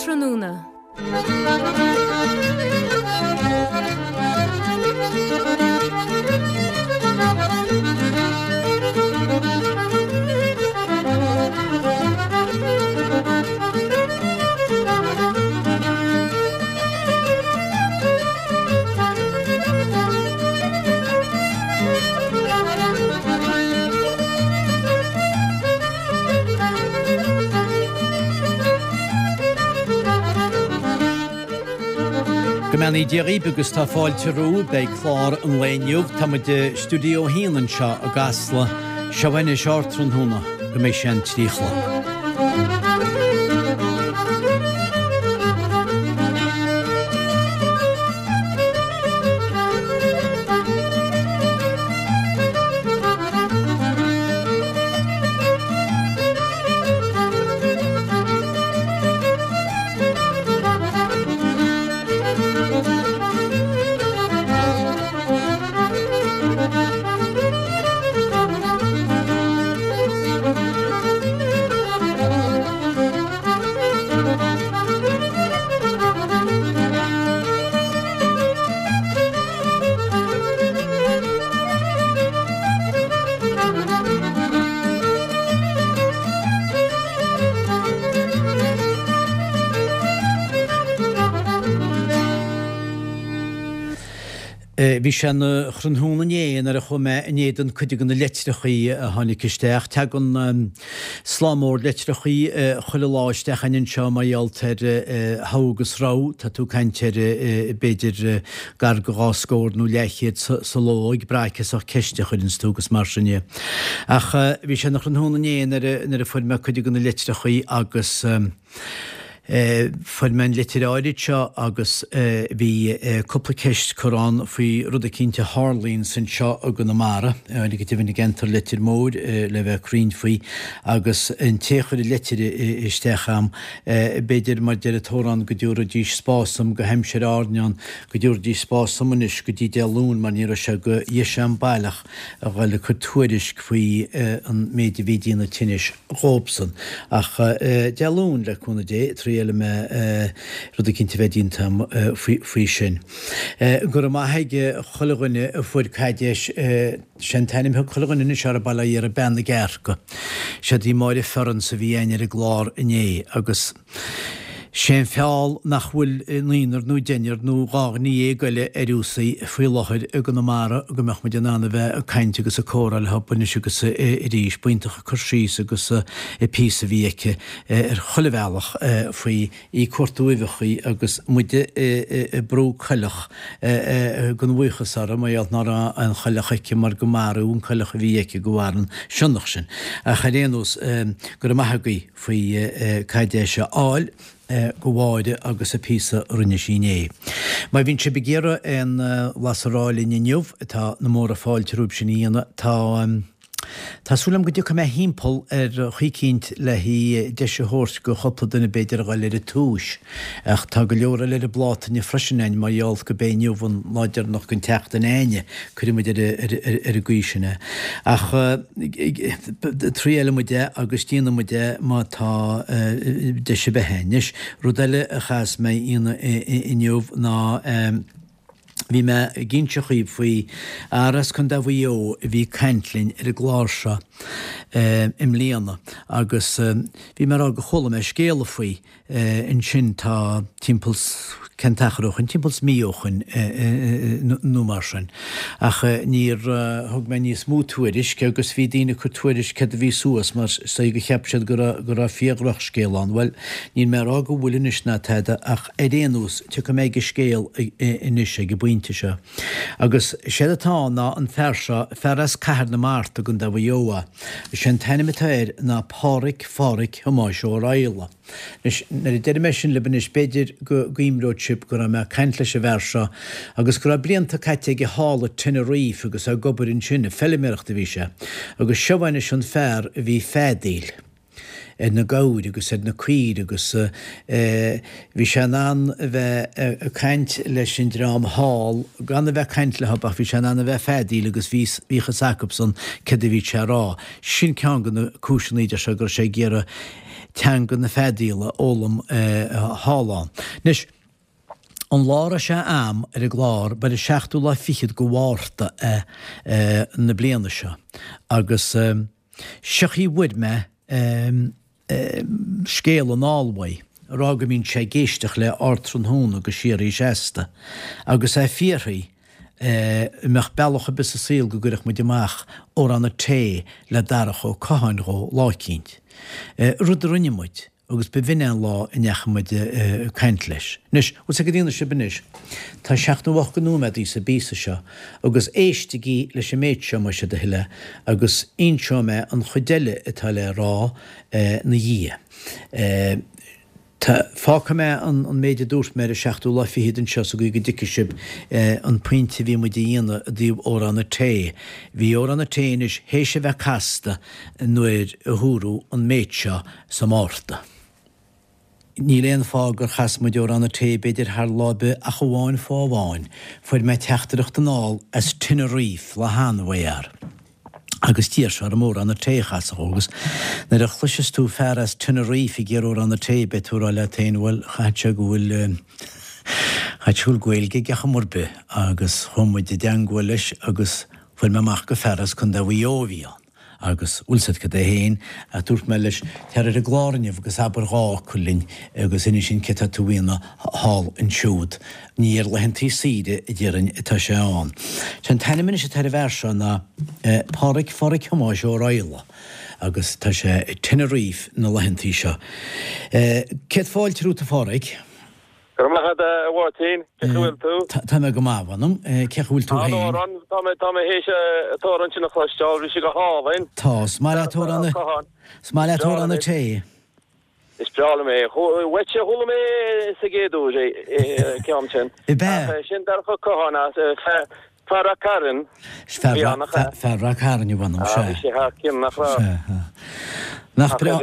Ardtráthnóna. Go mbeannaí Dia dhaoibh agus tá fáilte romhaibh. Beidh clár an lae inniu. Tá muid i Stiúideo 1 anseo i gCasla. Seo anois Ardtráthnóna go mbeidh sé an 3 a chlog. Bhí sé ina thráthnóna inné nuair a chuaigh mé in éadan cuid de na litreachaí a tháinig isteach. Tagann Slám mór litreachaí chuile lá isteach a'inn anseo mar gheall ar thogha agus rogha. Tá tú ag caint ar b'fhéidir gar go dhá scór nó leathchéad sa ló ag brath cén sórt ceiste a chuireanns tú agus mar sin dhe. Ach bhí sé ina thráthnóna inné nuair a fuair mé cuid de na litreachaí agus Fuair mé an litir áirid seo agus bhí cúpla ceist curtha ann faoi rud eicínt a tharlaíonns anseo i gConamara, go deimhin i gceantar Leitir Móir le bheith cruinn faoi, agus an té a chuir an litir isteach a'm, b'fhéidir mar deir an t-amhrán go dtabharfaidís spás dom go haimsir Árainn ann, go dtabharfaidís spás dom anois go dtí Dé Luain mar ní raibh sé go dheis a'm baileach a dhul ag cur tuairisc faoi an méid a bhí ag déanamh tinnis dhóibhsan. Ach Dé Luain, le cúnamh Dé, triailfidh mé rud eicínt a bheith déanta agam faoi sin. Go raibh maith ag chuile dhuine a fuair caidéis, sé an t-ainm a thug chuile dhuine anois uirthi bail ó Dhia uirthi, Bean na gCearca. Siad í Máire Ferrans a bhí againn ar an gclár inné agus. Sé an feall nach bhfuil naonúr nó deichniúr nó 12 dhuine eile ar fhiúsaí faoi láthair i gConamara go mbeadh muid in ann a bheith ag caint agus ag comhrá leo anois agus arís. B'iontach an cur síos agus an píosa a bhí aici ar chuile bhealach faoi í ag cuartú uibheachaí agus muide ag brú coileach den bhuíochas uirthi mar gheall ná raibh aon choileach aici mar go maraíodh an coileach a bhí aici de bharr an sionnach sin. Ach ar aon nós, go raibh maith agaibh. faoi caidéis a fháil go Mháire agus an píosa a rinne sí inné. Má bhíonn sibh ag iarraidh aon bhlas a rá linn inniu, tá na móra fáilte romhaibh sin a dhéanamh. Tá Tá súil agam go dtiocfaidh mé thimpeall ar chaoi eicínt le deis a thabhairt go chúpla duine b'fhéidir a dhul ar an tomhais. Ach tá go leor eile ar an bpláta inniu freisin a'inn mar gheall go b'é inniu an lá deireanach den tseachtain a'inne. Cuirfidh muid ar an gcaoi sin é. Ach triailfidh muid é agus déanfaidh muid é má tá deis ar bith a'inn. Anois, rud eile a chaithfeas mé a dhéanamh inniu ná bhí mé ag inse dhaoibh faoi fhear as Contae Mhaigh Eo a bhí ag caint linn ar an gclár seo i mbliana agus bhí mé ag rá gur chuala mé scéala faoi. Ansin tá timpeall 's cén t-achar ó shoin, timpeall 's mí ó shoin nó mar sin. Ach níor thug mé níos mó tuairisc agus bhí daoine ag cur tuairisc céard a bhí suas mar is dóigh go cheap siad go raibh go raibh fíor-dhrochscéal ann. Bhuel, níl mé ag rá go bhfuil anois ná tada ach ar aon nós tiocfaidh mé ag an scéal anois ag an bpointe seo. Agus séard atá ann ná an fear seo, fear as Cathair na Mart i gContae Mhaigh Eo é. Is é an t-ainm atá air ná Pádhraic Phádhraic Thomáis Ó Raghallaigh. Anois, nuair a deirim é sin libh anois, b'fhéidir go gcuimreoidh sibh go raibh mé ag caint leis an bhfear seo agus go raibh blianta caite aige thall i Tenerife agus é ag obair ansin, ag feilméaracht a bhí sé. Agus seo anois an fear a bhí ag feadaíl. ar na gabhair agus ar na caoirigh agus bhí sé in ann a bheith ag caint leis an dream thall gan a bheith ag caint leo ach bhí sé in ann a bheith ag feadaíl agus bhí bhíodh fhios acubsan céard a bhí sé a rá. Sin ceann de na cúiseanna a deir sé go raibh sé ag iarraidh teanga na feadaíola a fhoghlaim thall ann. Anois, an lá a raibh sé a'm ar an gclár ba ar an seachtú lá fichead de Mhárta é na bliana seo agus seo chaoi a bhfuair mé scéal anall uaidh, ag rá go mbíonn sé ag éisteacht le Ardtráthnóna go síoraí seasta, agus é ag fiafraí an mbeadh bealach ar bith sa saol go gcuirfeadh muid amach Amhrán an Tae le Darach Ó Catháin dhó lá eicínt. Rud a rinne muid, agus ba bh'in é an lá a ndeachaigh muid ag caint leis. Anois, bhfuil 's ag daoine sibh anois, tá 78 de nóiméadaí sa bpíosa seo, agus éistigí leis an méid seo, más é do thoil é, agus inseoidh mé an chuid eile atá le rá 'na dhiaidh. Tá, fágfaidh mé an méid a dúirt mé ar an seachtú lá fichead anseo sa gcaoi go dtuigfidh sibh an pointe a bhí muid a dhéanamh i dtaobh Amhrán an Tae. Bhí Amhrán an Tae anois théis a bheith casta nuair a húradh an méid seo sa Mhárta. Níl aon fáth gur chas muid Amhrán an Tae b'fhéidir thar lá ar bith ach amháin fáth amháin, fuair mé teachtaireacht anall as Tenerife lá cheana uaidh fhear agus d'iarr sé orm Amhrán an Tae a chasadh dhó agus nuair a chloiseas tú fear as Tenerife ag iarraidh Amhrán an Tae beidh tú ag rá leat féin bhuel chaithfeadh sé go bhfuil chaithfeadh sé go bhfuil Gaeilge aige chuma ar bith agus chuaigh muid i dteangmháil leis agus fuair mé amach gur fear as Contae Mhaigh Eo a bhí ann. Agus, bhfuil 's a'd cad é fhéin, ach dúirt mé leis, tar ar an gclár inniu agus abair dhá fhocal linn agus inis dúinn céard tá tú a dhéanamh thall ansiúd. Ní ar laethantaí saoire, a déarfainn, atá sé ann. Sé an t-ainm anois atá ar an bhfear seo ná Páraic Pháraic Thomáis Ó Raghallaigh agus tá sé i Tenerife na laethantaí seo. Céad fáilte romhat a Pháraic. Go raibh maith agat a Mháirtín, cén chaoi a bhfuil tú? Tá mé go maith, mh'anam. Cén chaoi a bhfuil tú féin? An-amhrán, tá mé, tá mé théis an t-amhrán sin a chloisteáil, bhí sé go hálainn. Tá, is maith leat amhrán na, is maith leat amhrán an tae. Is breá liom é. Uaitse a chuala mé sa gcéad uair é, an ceann sin. Ab ea? Ach sin Darach Ó Catháin as, Fear Rath Cairn. Fear Rath Cairn, mh'anam, sea. Bhí sé thar cionn, nach raibh? Sea. Nach breá,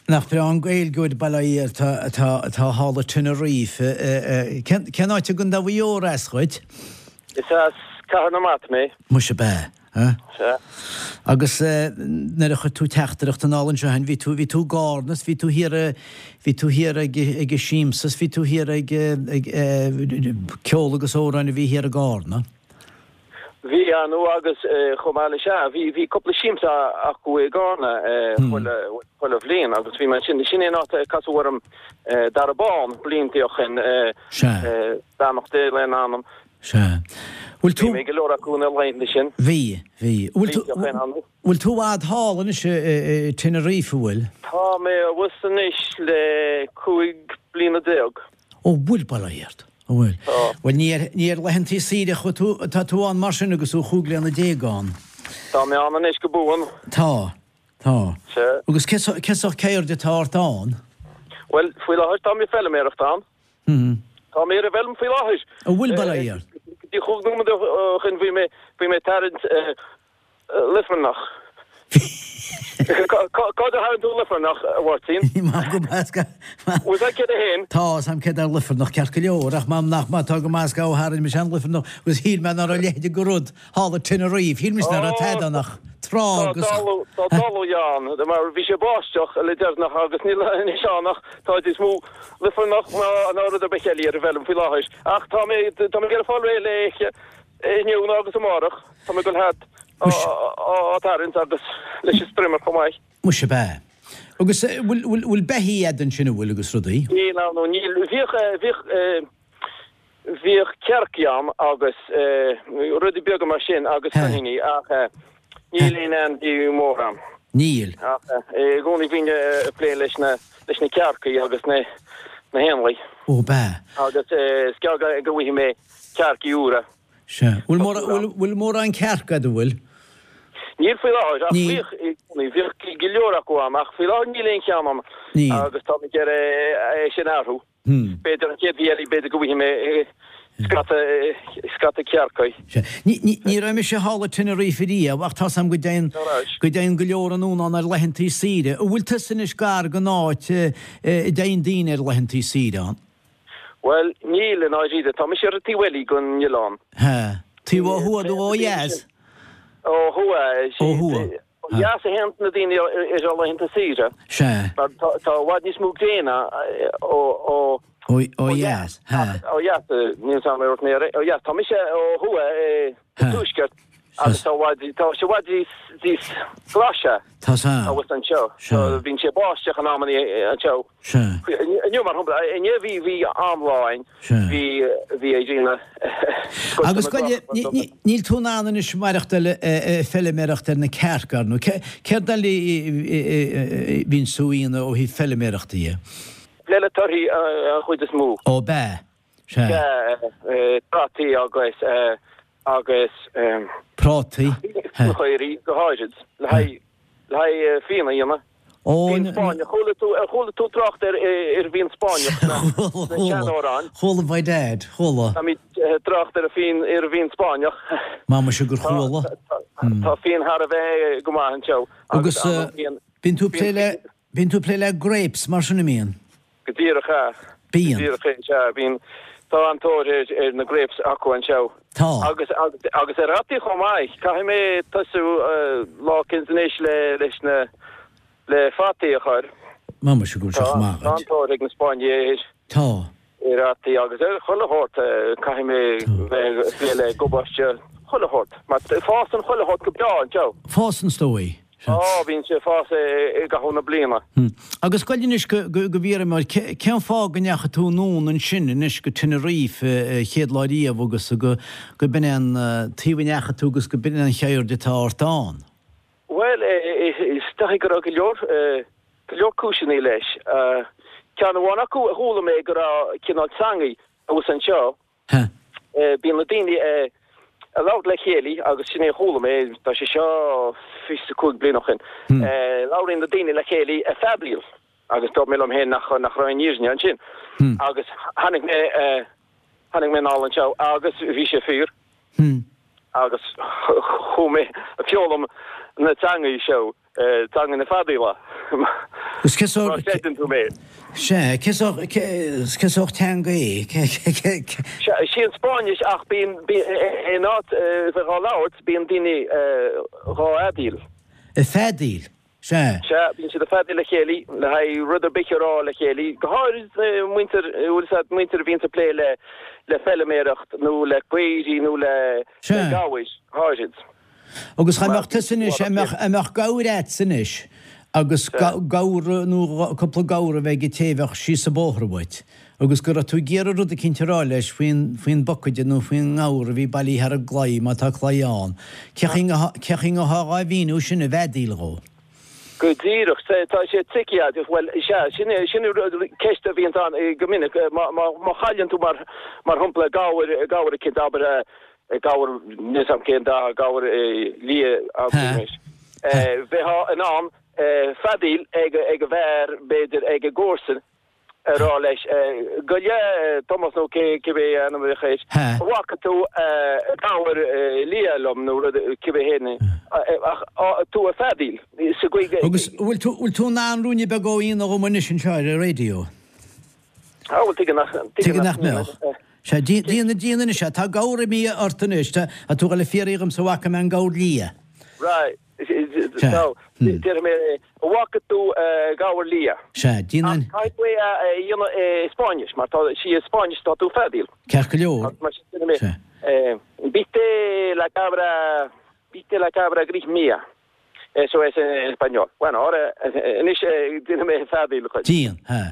nach breá an Gaeilgeoir bail ó Dhia air atá, atá thall i Tenerife. Cén, cén áit i gContae Mhaigh Eo as dhuit? Is as Cathair na Mart mé. Muise ab ea? Sea. Agus nuair a chuir tú teachtaireacht anall anseo féin, bhí tú, bhí tú i gCarna is bhí tú thiar i, bhí tú thiar ag, ag an siamsa is bhí tú thiar ag, ag ceol agus amhráin a bhí thiar i gCarna. Bhí, ar ndóigh, agus chomh maith leis, sea, bhí, bhí cúpla siamsa acu i gCarna chuile, chuile bhliain agus bhí mé ansin, sin é an áit a casadh orm Dara Bán blianta ó shin, Sea. beannacht Dé lena anam. Sea. Bhfuil tú. Bhí mé ag go leor acu na laethanta sin. Bhí, bhí. Bhfuil tú, bhfuil tú i bhfad thall anois i Tenerife, an bhfuil? Tá mé abhus anois le 15 bliana. Ó bhfuil, bail ó Dhia ort. Ó bhfuil. Tá. Bhuel ní ar, ní ar laethantaí saoire a chuaigh tú, atá tú ann mar sin agus tú 15 bliana ann. Tá mé ann anois go buan. Tá, tá. Sea. Agus cé, cén sórt ceird atá ort ann? Bhuel, faoi láthair tá mé ag feilméaracht ann. Tá mé ar an bhfeilm faoi láthair. An bhfuil, bail ó Dhia ort? Go dtí chúig nóiméad ó shin bhí mé, bhí mé ag tarraingt luifearnach. Cá fhad a tharraing tú luifearnach, a Mháirtín? Maith go measca. Bhfuil a fhios agat céard é féin? Tá, 's a'm céard é luifearnach ceart go leor, ach m'anam nach maith atá go measca ó tharraing mise an luifearnach agus shíl mé ná raibh a leithéid de rud thall i Tenerife, shíl mise ná raibh tada ann ach trá agus. Tá dalladh ann, mar bhí sé ag báisteach le deireanach agus níl anois ann ach tá níos mó luifearnach ná rud ar bith eile ar an bhfeilm faoi láthair. Ach tá mé tá mé ag iarraidh fáil réidh léi inniu nó agus amárach. Tá mé ag dul thart á tarraingt agus leis an strimmer chomh maith. Muise ab ea. Agus bhfuil bhfuil beithígh a'd ansin an bhfuil agus rudaí? Níl ann, níl. Bhíodh bhíodh Bhíodh cearcaí ann agus rudaí beaga mar sin agus coiníní ach níl aon ainmhí mór ann. Níl. Ach i gcónaí bhínn ag plé leis na leis na cearcaí agus na na héanlaith. Ó ab ea. Agus is gearr go go bhfaighidh mé cearcaí úra. Sea. Bhfuil mórán bhfuil bhfuil mórán cearc a'd an bhfuil? Níl faoi láthair ach bhíodh i gcónaí bhíodh go leor acu ann ach faoi láthair níl aon cheann ann Níl. agus tá mé ag iarraidh é sin a athrú. B'fhéidir an chéad mhí eile, b'fhéidir go bhfaighidh mé. Scata, scata cearcaí. Sea. Ní, ní, ní raibh mise thall i Tenerife riamh ach tá's a'm go dtéann, go dtéann go leor anonn ann ar laethantaí saoire. An bhfuil tusa anois gar don áit a dtéann daoine ar laethantaí saoire ann? Bhuel, níl, i ndáiríre. Tá mise ar an taobh eile den oileán. Sea. Taobh ó thuaidh nó ó dheas? Ó thuaidh. Ó thuaidh. Ó dheas a théann na daoine ar laethanta saoire. Sea. Mar tá i bhfad níos mó gréine ó Ó dheas. Sea. Ó dheas, níl 's a'm ar mé ó dheas. Tá mise ó thuaidh sa tuaisceart agus tá i bhfad, tá sé i bhfad níos, níos glaise Tá 's a'm. abhus anseo. Sea. Bíonn sé báisteach in amanna anseo. Sea. Inniu, mar shampla, inné bhí, bhí an-lá againn. Sea. Bhí, bhí an ghrian Agus gabh i leith, níl tú in ann anois maireachtáil ag feiliméireacht ar na cearca, ar ndóigh. Céard eile a bhíonn tú a dhéanamh ó thaobh feiliméireachta dhe? Plé le torthaí an chuid is mó. Ó bea. Sea. Sea, prátaí agus, agus. Prátaí. Fíonchaoraí go háirid, le haghaidh, le haghaidh fíon a dhéanamh. Ó, Fíon Spáinneach. Chuala tú, ar chuala tú trácht ar, ar bhfíon Spáinneach sna, Chuala, sna chuala. seanamhráin? Chuala by dad, chuala. Táimid ag trácht ar an fíon, ar an bhfíon Spáinneach. Má muise gur Tá, chuala. tá, tá fíon thar a bheith go maith anseo Agus, agus an fíon, bíonn tú ag fíon, plé le, bíonn tú ag plé le grapes mar sin, an mbíonn? Go díreach ea. Bíonn. Go díreach é, sea. Bíonn. Tá an-tóir ar, ar na grapes acu anseo. Tá. Agus, agus, agus ar fhataí chomh maith. Caithfidh mé tosú lá eicínt anois le, leis na, le fataí a chur. Má muise go bhfuil sé Tá, chomh maith tá agat. an-tóir ag na Spáinnigh ar, Tá. ar fhataí agus ar chuile shórt. Caithfidh mé bheith ag plé le gabáiste, chuile shórt. Mar fásann chuile shórt go breá anseo. Fásann is dóigh. Á, bíonn sé ag fás i gcaitheamh na bliana. Agus gabh i leith anois go bhfiafraí mé, cén fáth go ndeachaigh tú anonn ansin anois go Tenerife an chéad lá riamh agus go b'in é an taobh a ndeachaigh tú agus go b'in é an cheird atá ort ann? Bhuel, is dóigh go raibh go leor, go leor cúiseanna leis. Ceann amháin acu a chuala mé go raibh cineál teangaidh abhus anseo Ha. Bíonn na daoine ag labhairt le chéile agus sin é a chuala mé, tá sé seo 25 bliain ó shin, labhraíonn na daoine le chéile ag feadaíl agus dúirt mé liom féin nach nach raibh aon fhírinne ansin. Agus tháinig mé tháinig mé anall anseo agus bhí sé fíor agus chuaigh mé ag foghlaim na teangaí seo. Teanga na feadaíola. Agus cé sórt. Má chreideann tú mé. Sea, cé sórt, cé sórt teanga é? Sea, sí an Spáinnis ach bíonn, in áit bheith dhá labhairt, bíonn daoine dhá fheadaíl. Ag feadaíl, sea. Sea, bíonn siad ag feadaíl le chéile, le haghaidh rud ar bith a rá le chéile, go háirid muintir, bhfuil 'fhios a'd, muintir a bhíonns ag plé le, le feiliméireacht nó le caoirigh nó le, le gabhair, go háirid. Agus dá mbeadh tusa anois, dá mbeadh, dá mbeadh gabhar a'dsa anois agus gabhar nó cúpla gabhar a bheith ag an té a bheadh síos an bóthar uait agus go raibh tú ag iarraidh rud eicínt a rá leis faoin, faoin bpocaide nó faoin ngabhar a bhí bailithe thar an gclaí, má tá claí ann, cé chaoi cé chaoi a ngabhfá dhá mhíniú sin i bhfeadaíl dhó? Go díreach, tá sé tricky, bhuel, sea, sin é, sin ceist a bhíonns ann go minic, má, má, má chailleann tú mar, mar shampla gabhar, gabhar eicínt, abair, gabhar, níl 'fhios a'm cén dath, gabhar liath, abraimis. Bheifeá in ann feadaíl ag an bhfear, b'fhéidir, ag an gcomharsan, a rá leis, gabh i leith, Tomás nó cibé ainm a bheadh air, an bhfaca tú gabhar liath liom nó rud cibé héin, ach tú ag feadaíl sa gcaoi go. Agus bhfuil tú, bhfuil tú in ann ruainne beag a dhéanamh dhom anois anseo ar an raidió? Á, bhuel, tuige nach, tuige nach mbeadh. Sea, déan, déan anois é. Tá gabhar imithe ort anois. Tá tú ag dul a fiafraí dhomsa an bhfaca mé an gabhar liath. Right. So, déarfaidh mé, an bhfaca tú gabhar liath? Sea, déan an. Ach caithfidh tú é a dhéanamh i Spáinnis, mar tá sí i Spáinnis tá tú ag feadaíl. Ceart go leor. Mar sin déarfaidh mé, Viste la cabra, viste la cabra gris mía. Eso es en español. Bueno, ahora, anois déanfaidh mé feadaíl dhuit. Déan, ha.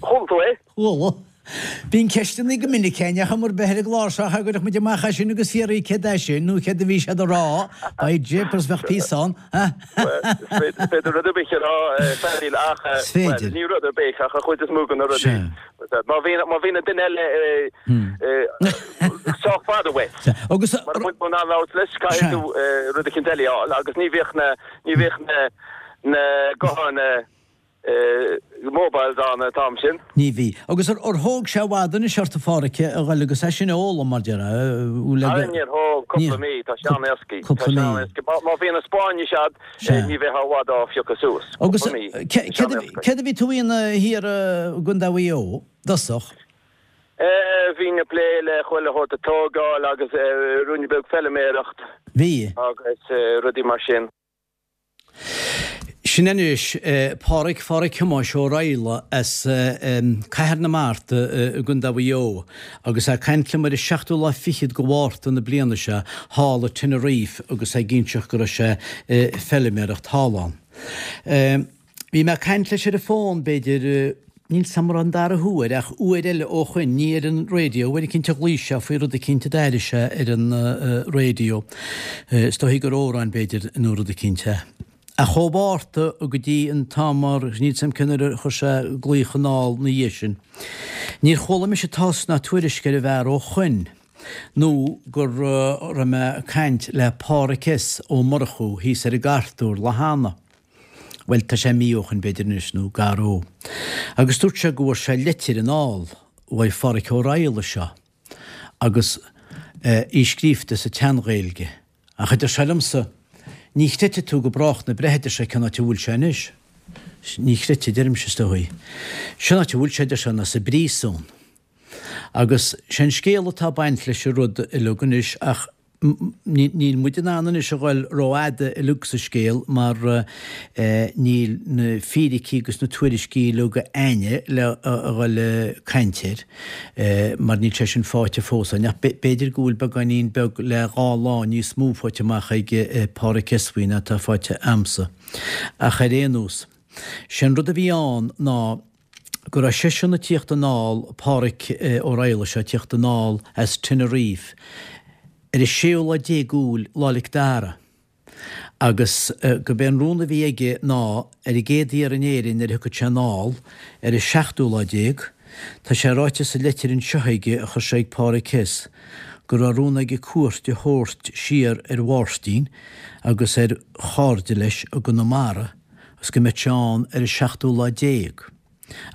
Chuala tú é? Chuala. Bíonn ceisteanna go minic againn ach am ar bith ar an gclár seo cha gcuirfeadh muid amach é sin agus fiafraí céard é sin nó céard a bhí siad a rá. By jeepers bheadh píosa ann. Bhuel, is féidir rud ar bith a rá feadaíl ach, Is féidir. bhuel, ní rud ar bith ach an chuid is mó de na rudaí. Sea. Má bhíonn, má bhíonn an duine eile sách fada uait. Sea. Agus. Mara bhfuil tú in ann labhairt leis, caithfidh tú rud eicínt eile a fháil agus ní bhíodh na, ní bhíodh na, na gutháin, mobiles ann an t-am sin. Ní bhí. Agus ar thóg sé i bhfad anois ort a Pháraic a ghoil agus é sin a fhoghlaim mar déarfá? Ara níor thóg, cúpla mí, tá sé an-éascaí. Tá sé an-éascaí. Má bhíonn an Spáinnis a'd, ní bheifeá i bhfad á phiocadh suas. Agus Cúpla mí. Tá sé an-éascaí. Céard a bhí tú a dhéanamh thiar i gContae Mhaigh Eo, i dtosach? Bhínn ag plé le chuile shórt ag tógáil agus ruainne beag feiliméireacht. Bhí. Agus rudaí mar sin. Sin anois Páraic Pháraic Thomáis Ó Raghallaigh as Cathair na Mart i gContae Mhaigh Eo agus é ag caint liom ar an seachtú lá fichead de Mhárta na bliana seo thall i Tenerife agus é ag inseacht go raibh sé ag feiliméireacht thall ann. Bhí mé ag caint leis ar an bhfón, b'fhéidir, níl 's a'm an raibh an dara huair, ach uair eile ó shoin, ní ar an raidió, uair eicínt a ghlaoigh sé faoi rud eicínt a d'airigh sé ar an raidió, is dóichí gur amhrán, b'fhéidir, nó rud eicínt é. Ach ó Mhárta go dtí an t-am mar, níl 's a'm cén uair a chuir sé glaoch anall 'na dhiaidh sin, níor chuala mise tásc ná tuairisc ar an bhfear ó shoin, nó go raibh mé ag caint le Páraic S. Ó Murchú thíos ar an gCartúr lá cheana. Bhuel, tá sé mí ó shoin b'fhéidir anois, nó gar dó. Agus dúirt sé go bhfuair sé leitir anall uaidh Pháraic Ó Raghallaigh seo, agus í scríobhta sa tSean-Ghaeilge. Ach a deir sé liomsa, ní chreidfidh tú go brách na breithe, a deir sé, cén áit a bhfuil sé anois. Ní chreidfidh, a deirimse, is dóigh. Sén áit a bhfuil sé, a deir sé, ná sa bpríosún. Agus sé an scéal atá ag baint leis an rud uileag anois ach Níl muid in ann anois a ghoil rófhada uileag sa scéal mar níl na fíricí agus na tuairiscí uileag a'inne le a ghoil ag caint air mar níl sé sin faighte fós a'inn. Ach b'fhéidir go bhfuil beagáinín beag le dhá lá níos mó faighte amach ag Páraic S. faoi ná atá faighte a'msa. Ach ar aon nós, sé an rud a bhí ann ná go raibh seisean ag tíocht anall, Páraic Ó Raghallaigh seo, ag tíocht anall as Tenerife ar an séú lá déag Iúil, Lá 'le Mhic Dara, agus gurb é an rún a bhí aige ná ar an gcéad iarraidh in Éirinn nuair a thiocfadh sé anall ar an seachtú lá déag, tá sé ráite sa leitir anseo aige a chuir sé ag Páraic S. go raibh rún aige cuairt a thabhairt siar ar Mháirtín agus ar chairde leis i gConamara, agus go mbeadh sé ann ar an seachtú lá déag,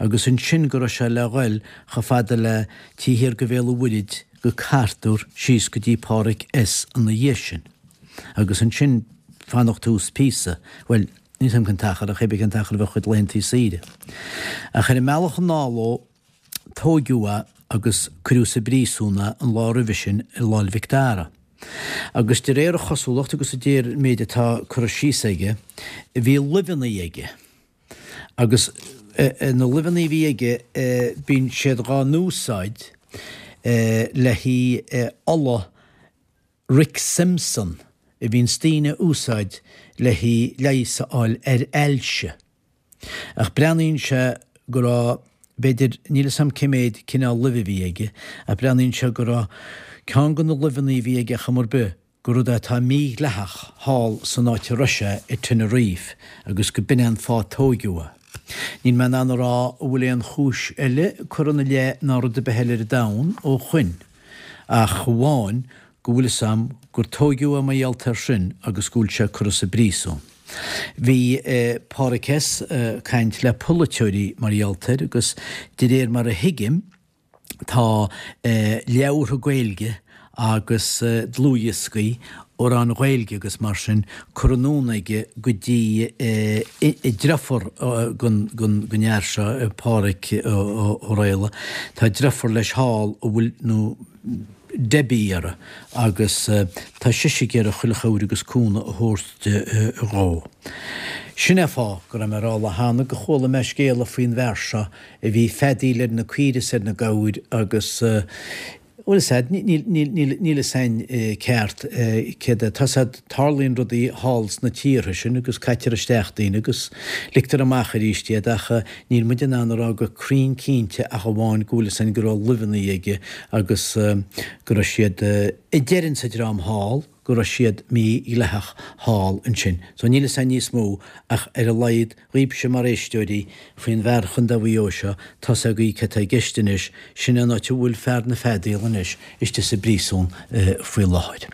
agus ansin go raibh sé le ghoil chomh fada le taobh thiar de Bhéal an Mhuirthid go Cartúr síos go dtí Páraic S. ina dhiaidh sin, agus ansin fanacht thuas píosa, bhuel, níl 's a'm cén t-achar, ach cébí cén t-achar a bheadh a chuid laethantaí saoire. Ach ar an mbealach anall dhó, tóigeadh é agus cuireadh sa bpríosún é an lá roimhe sin ar Lá 'le Mhic Dara. Agus de réir a chosúlacht agus de réir an méid atá curtha síos aige, bhí luibheanna aige. Agus na luibheanna a bhí aige, bíonn siad dhá n-úsáid le haghaidh ola Rick Simpson a bhíonns daoine a úsáid le haghaidh leigheas a fháil ar ailse. Ach breathnaíonn sé go raibh, b'fhéidir, níl 'fhios a'm cé méid cineál luibhe a bhí aige, ach breathnaíonn sé go raibh ceann de na luibheanna a bhí aige ar chuma ar bith, gur rud é atá mídhleathach thall san áit a raibh sé i Tenerife agus go b'in é an fáth a tóigeadh é. Níl mé in ann a rá an bhfuil aon chúis eile curtha ina leith ná rud ar bith eile ar an domhan ó shoin ach amháin go bhfuil 'fhios a'm gur tóigeadh é mar gheall air sin agus go bhfuil sé curtha sa bpríosún. Bhí Páraic S. ag caint le polaiteoirí mar gheall air agus de réir mar a thuigim tá leabhartha Gaeilge agus dlúthdhioscaí, amhráin Ghaeilge agus mar sin curtha anonn aige go dtí deirfiúr den fhear seo, Páraic Ó Raghallaigh. Tá deirfiúr leis thall a bhfuil nó Debbie uirthi agus tá sise ag iarraidh chuile chabhair agus cúnamh a thabhairt dhó. Sin é fáth go raibh mé ag rá lá cheana go chuala mé scéala faoin bhfear seo a bhí ag feadaíl ar na caoire is ar na gabhair agus bhuel is ea, níl níl fhios a'inn ceart céard é. Tá 's a'd, tarlaíonn rudaí thall sna tíortha sin agus caitear isteach daoine agus ligtear amach arís iad ach níl muid in ann a rá go cruinn cinnte ach amháin go bhfuil fhios a'inn go raibh luibheanna aige agus go raibh siad, a deireann sa dream thall. go raibh siad mídhleathach thall ansin. So níl fhios a'inn níos mó ach ar a laghad dhaoibhse mar éisteoirí faoin bhfear Chontae Mhaigh Eo seo, tá's agaibh cé tá i gceist anois, sin é an áit a bhfuil fear na feadaíola anois istigh sa bpríosún faoi láthair.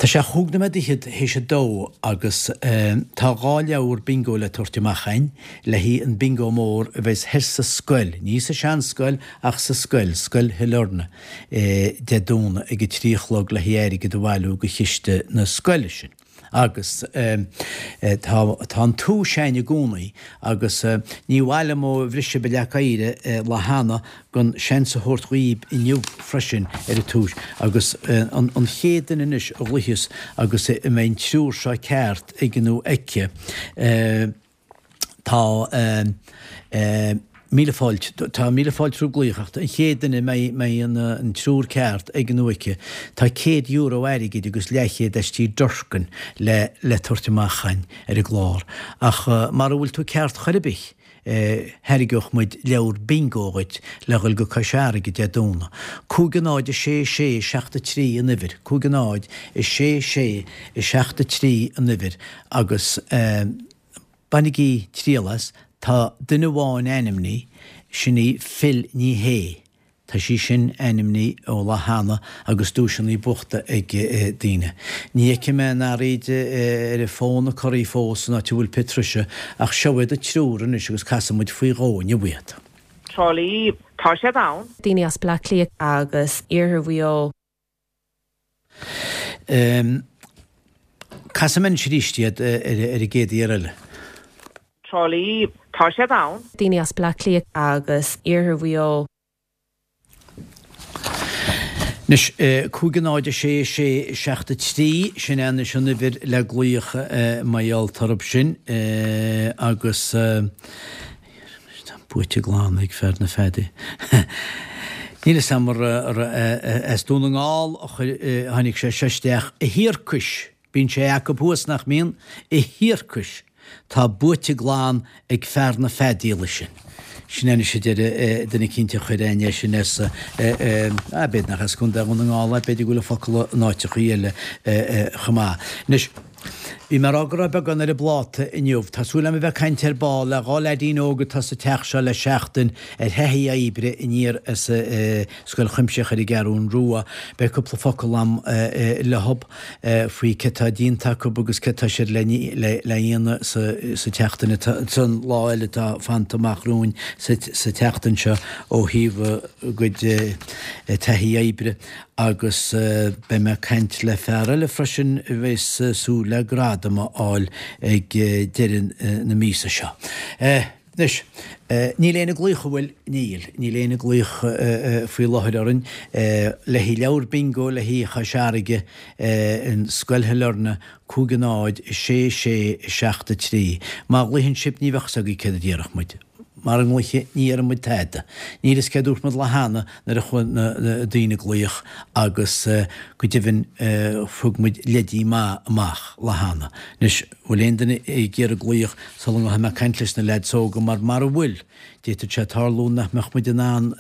Tá sé chúig nóiméad fhichead théis a dó agus tá dhá leabhar bingo le tabhairt amach a'inn le haghaidh an bingo mór a bheas thoir sa scoil, ní sa seanscoil ach sa scoil, Scoil Shailearna, Dé Domhnaigh ag a trí a chlog le haghaidh airgead a bhailiú go chiste na scoile sin. Agus tá tá an túis a'inn i gcónaí agus ní mhaith liom ó bhris sibh an leac oighir lá cheana gan seans a thabhairt dhaoib inniu freisin ar an túis agus an chéad duine anois a ghlaoifeas agus a mbeidh an triúr seo ceart aige nó aici tá míle fáilte tá míle fáilte roimh glaoch ach an chéad duine a mbeidh an triúr ceart aige nó aici tá €100 airgid agus leathchéad as tí Durkin le le tabhairt amach a'inn ar an gclár ach mara bhfuil tú ceart chor ar bith Thairgeodh muid leabhar bingo dhuit le dhul go Cois Fharraige Dé Domhnaigh. 5 0 6 6 7 3 an uimhir, 5 0 6 6 7 3 an uimhir agus bainigí triail as, tá duine amháin ainmnithe, sin í Phil Ní Shé. Tá sí sin ainmnithe ó lá cheana agus duaiseanna buachta ag daoine. Ní fheicfidh mé an araoid ar an bhfón ag corraí fós san áit a bhfuil Patricia ach seo iad an triúr anois agus casfaidh muid faoi dhó inniu iad. Trá Lí, tá siad ann. Daoine as Bleá Cliath. Agus Iarthar Mhaigh Eo. Casfaidh mé anois arís iad ar an gcéad iarraidh eile. Trá Lí, tá siad ann. Daoine as Bleá Cliath. Agus Iarthar Mhaigh Eo. Anois, 5 0 6 6 7 3, sin é anois an uimhir le glaoch mar gheall orthu sin agus tá buaite glan ag fear na feadaíola. Níl fhios a'm ar as Dún na nGall a tháinig sé seo isteach, a thiarcais! Bíonn sé acu thuas, nach mbíonn? A thiarcais! Tá buaite glan ag fear na feadaíola sin. Sin é anois a deir duine eicínt a chuir a'inn é sin as, ah, b'fhéidir nach as Contae Dhún na nGall é, b'fhéidir go bhfuil an focal in áiteachaí eile chomh maith. Anois, bhí mé ag rá go raibh beagán ar an bpláta inniu. Tá súil agam a bheith ag caint ar ball le dhá leaidín óg atá sa teach seo le seachtain ar thaithí oibre aniar as Scoil Chuimsitheach ar an gCeathrún Rua. Beidh cúpla focal a'm leothub. faoi cé tá déanta acu agus cé tá siad le dhéanamh sa tseachtain atá, san lá eile atá fanta amach romhainn sa tseachtain seo ó thaobh a gcuid taithí oibre agus beidh mé ag caint le fear eile freisin a bheas súil le gradam a fháil ag deireadh na míosa seo. Anois, níl éinne ag glaoch, an bhfuil? Níl. Níl éinne ag glaoch faoi láthair orainn. Le haghaidh leabhar bingo le haghaidh Chois Fharraige in Scoil Shailearna, 5 0 6 6 7 3. Má ghlaochann sibh ní bheadh fhios agaibh céard a déarfadh muid. Mara nglaofaidh ní dhéarfaidh muid tada. Níl fhios céard dúirt muid lá cheana nuair a chuaigh na daoine ag glaoch agus go deimhin thug muid leidí maith amach lá cheana. Anois, bhfuil aon duine ag iarraidh glaoch sula ngabhfaidh mé ag caint leis na leaids óga mar mara bhfuil, d'fhéadfadh sé tarlú nach mbeadh muid in ann,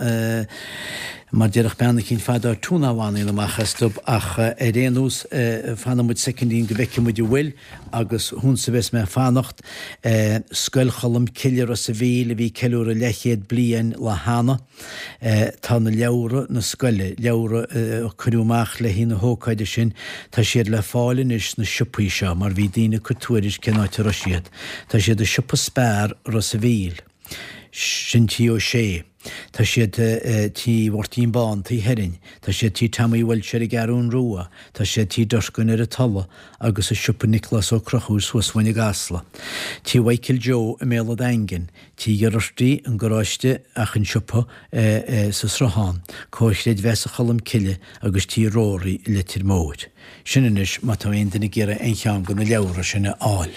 mar déarfadh bean eicínt fadó, tune a bhaineann amach astu ach ar aon nós fanfaidh muid soicindín go bhfeicfidh muid an bhfuil agus thusa a bheas mé ag fanacht. Scoil Cholm Cille Ros a' Mhíl a bhí ag ceiliúradh leathchéad bliain lá cheana. Tá na leabhra na scoile, leabhra a cuireadh amach le haghaidh na hócáide sin, tá siad le fáil anois sna siopaí seo mar bhí daoine ag cur tuairisc cén áit a raibh siad. Tá siad i siopa Spar, Ros a' Mhíl. Sin Tí Ó Sé. Tá siad Tí Mháirtín Bán, Tí Heron. Tá siad Tí Tommy Walsh ar an gCeathrún Rua. Tá siad Tí Durkin ar an Tulaigh agus i siopa Nioclás Ó Conchúir suas uainn i gCasla. Tí Mhichael Joe i mBéal a' Daingin. Tí Gherarty, an garáiste ach an siopa sa Sruthán, Comhar Chreidmheasa Cholm Cille agus Tí Rory i Leitir Móir. Sin anois má tá aon duine ag iarraidh aon cheann de na leabhra sin a fháil.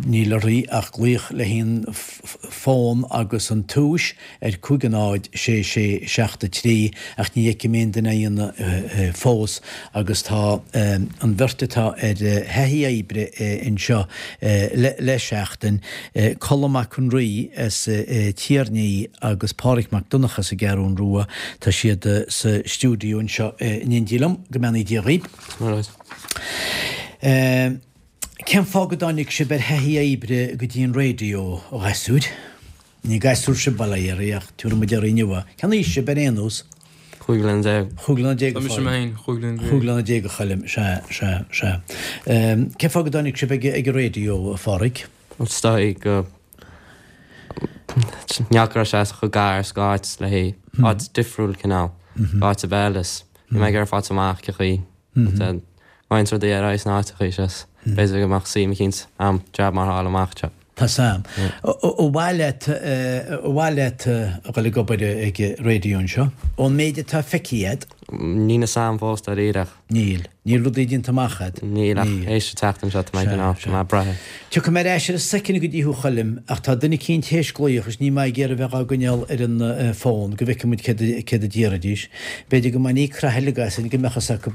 Níl oraibh ach glaoch le haon fón. fón agus an tomhas ar 5 0 6 6 7 3 ach ní fheicim aon duine á dhéanamh fós agus tá an bheirt atá ar thaithí oibre anseo le seachtain, Colm Mac Con Rí as Tír an Fhia agus Páraic Mac Donncha as an gCeathrún Rua, tá siad sa stiúideo anseo in éindí liom. Go mbeannaí Dia dhaoib. Cén fáth go dtáinig sibh ar thaithí oibre go dtí an raidió, a ghasúir? Ní gasúir sibh, bail ó Dhia oraibh, ach tabharfaidh muid oraibh inniu é. Cén aois sibh ar aon nós? 15 bliana. 15 bliana a Tá mise mé féin, 15 bliana. 15 bliana a Choilm, sea, sea, sea. Cén fáth go dtáinig sibh ag an raidió, a Pháraic? Is dóigh go neach go raibh sé chomh gar is go áit le haghaidh áit difriúil cineál, áit a bheith is bhí mé ag iarraidh fáilt amach cén chaoi Roinnt rudaí ar aghaidh sna áiteacha is b'fhéidir go mbeadh suim eicínt a'm jab mar fháil amach anseo. Tá 's a'm. Ar mhaith leat, ar mhaith leat a dhul ag obair ag raidió anseo? Ón méid atá feicthe a'd? Níl 'fhios a'm fós dáiríre ach. Níl. Níl rudaí déanta amach a'd? Níl ach théis an tseachtain seo tá mé cineál, tá mé ag brath. Tiocfaidh mé ar ais ar an soicind go dtí thú Choilm ach tá duine eicínt théis glaoch is níl mé ag iarraidh bheith dhá gcoinneáil ar an bhfón go bhfeicfidh muid céard a déarfaidís. B'fhéidir go mbeidh ní craith uilig as go mbeadh fhios acu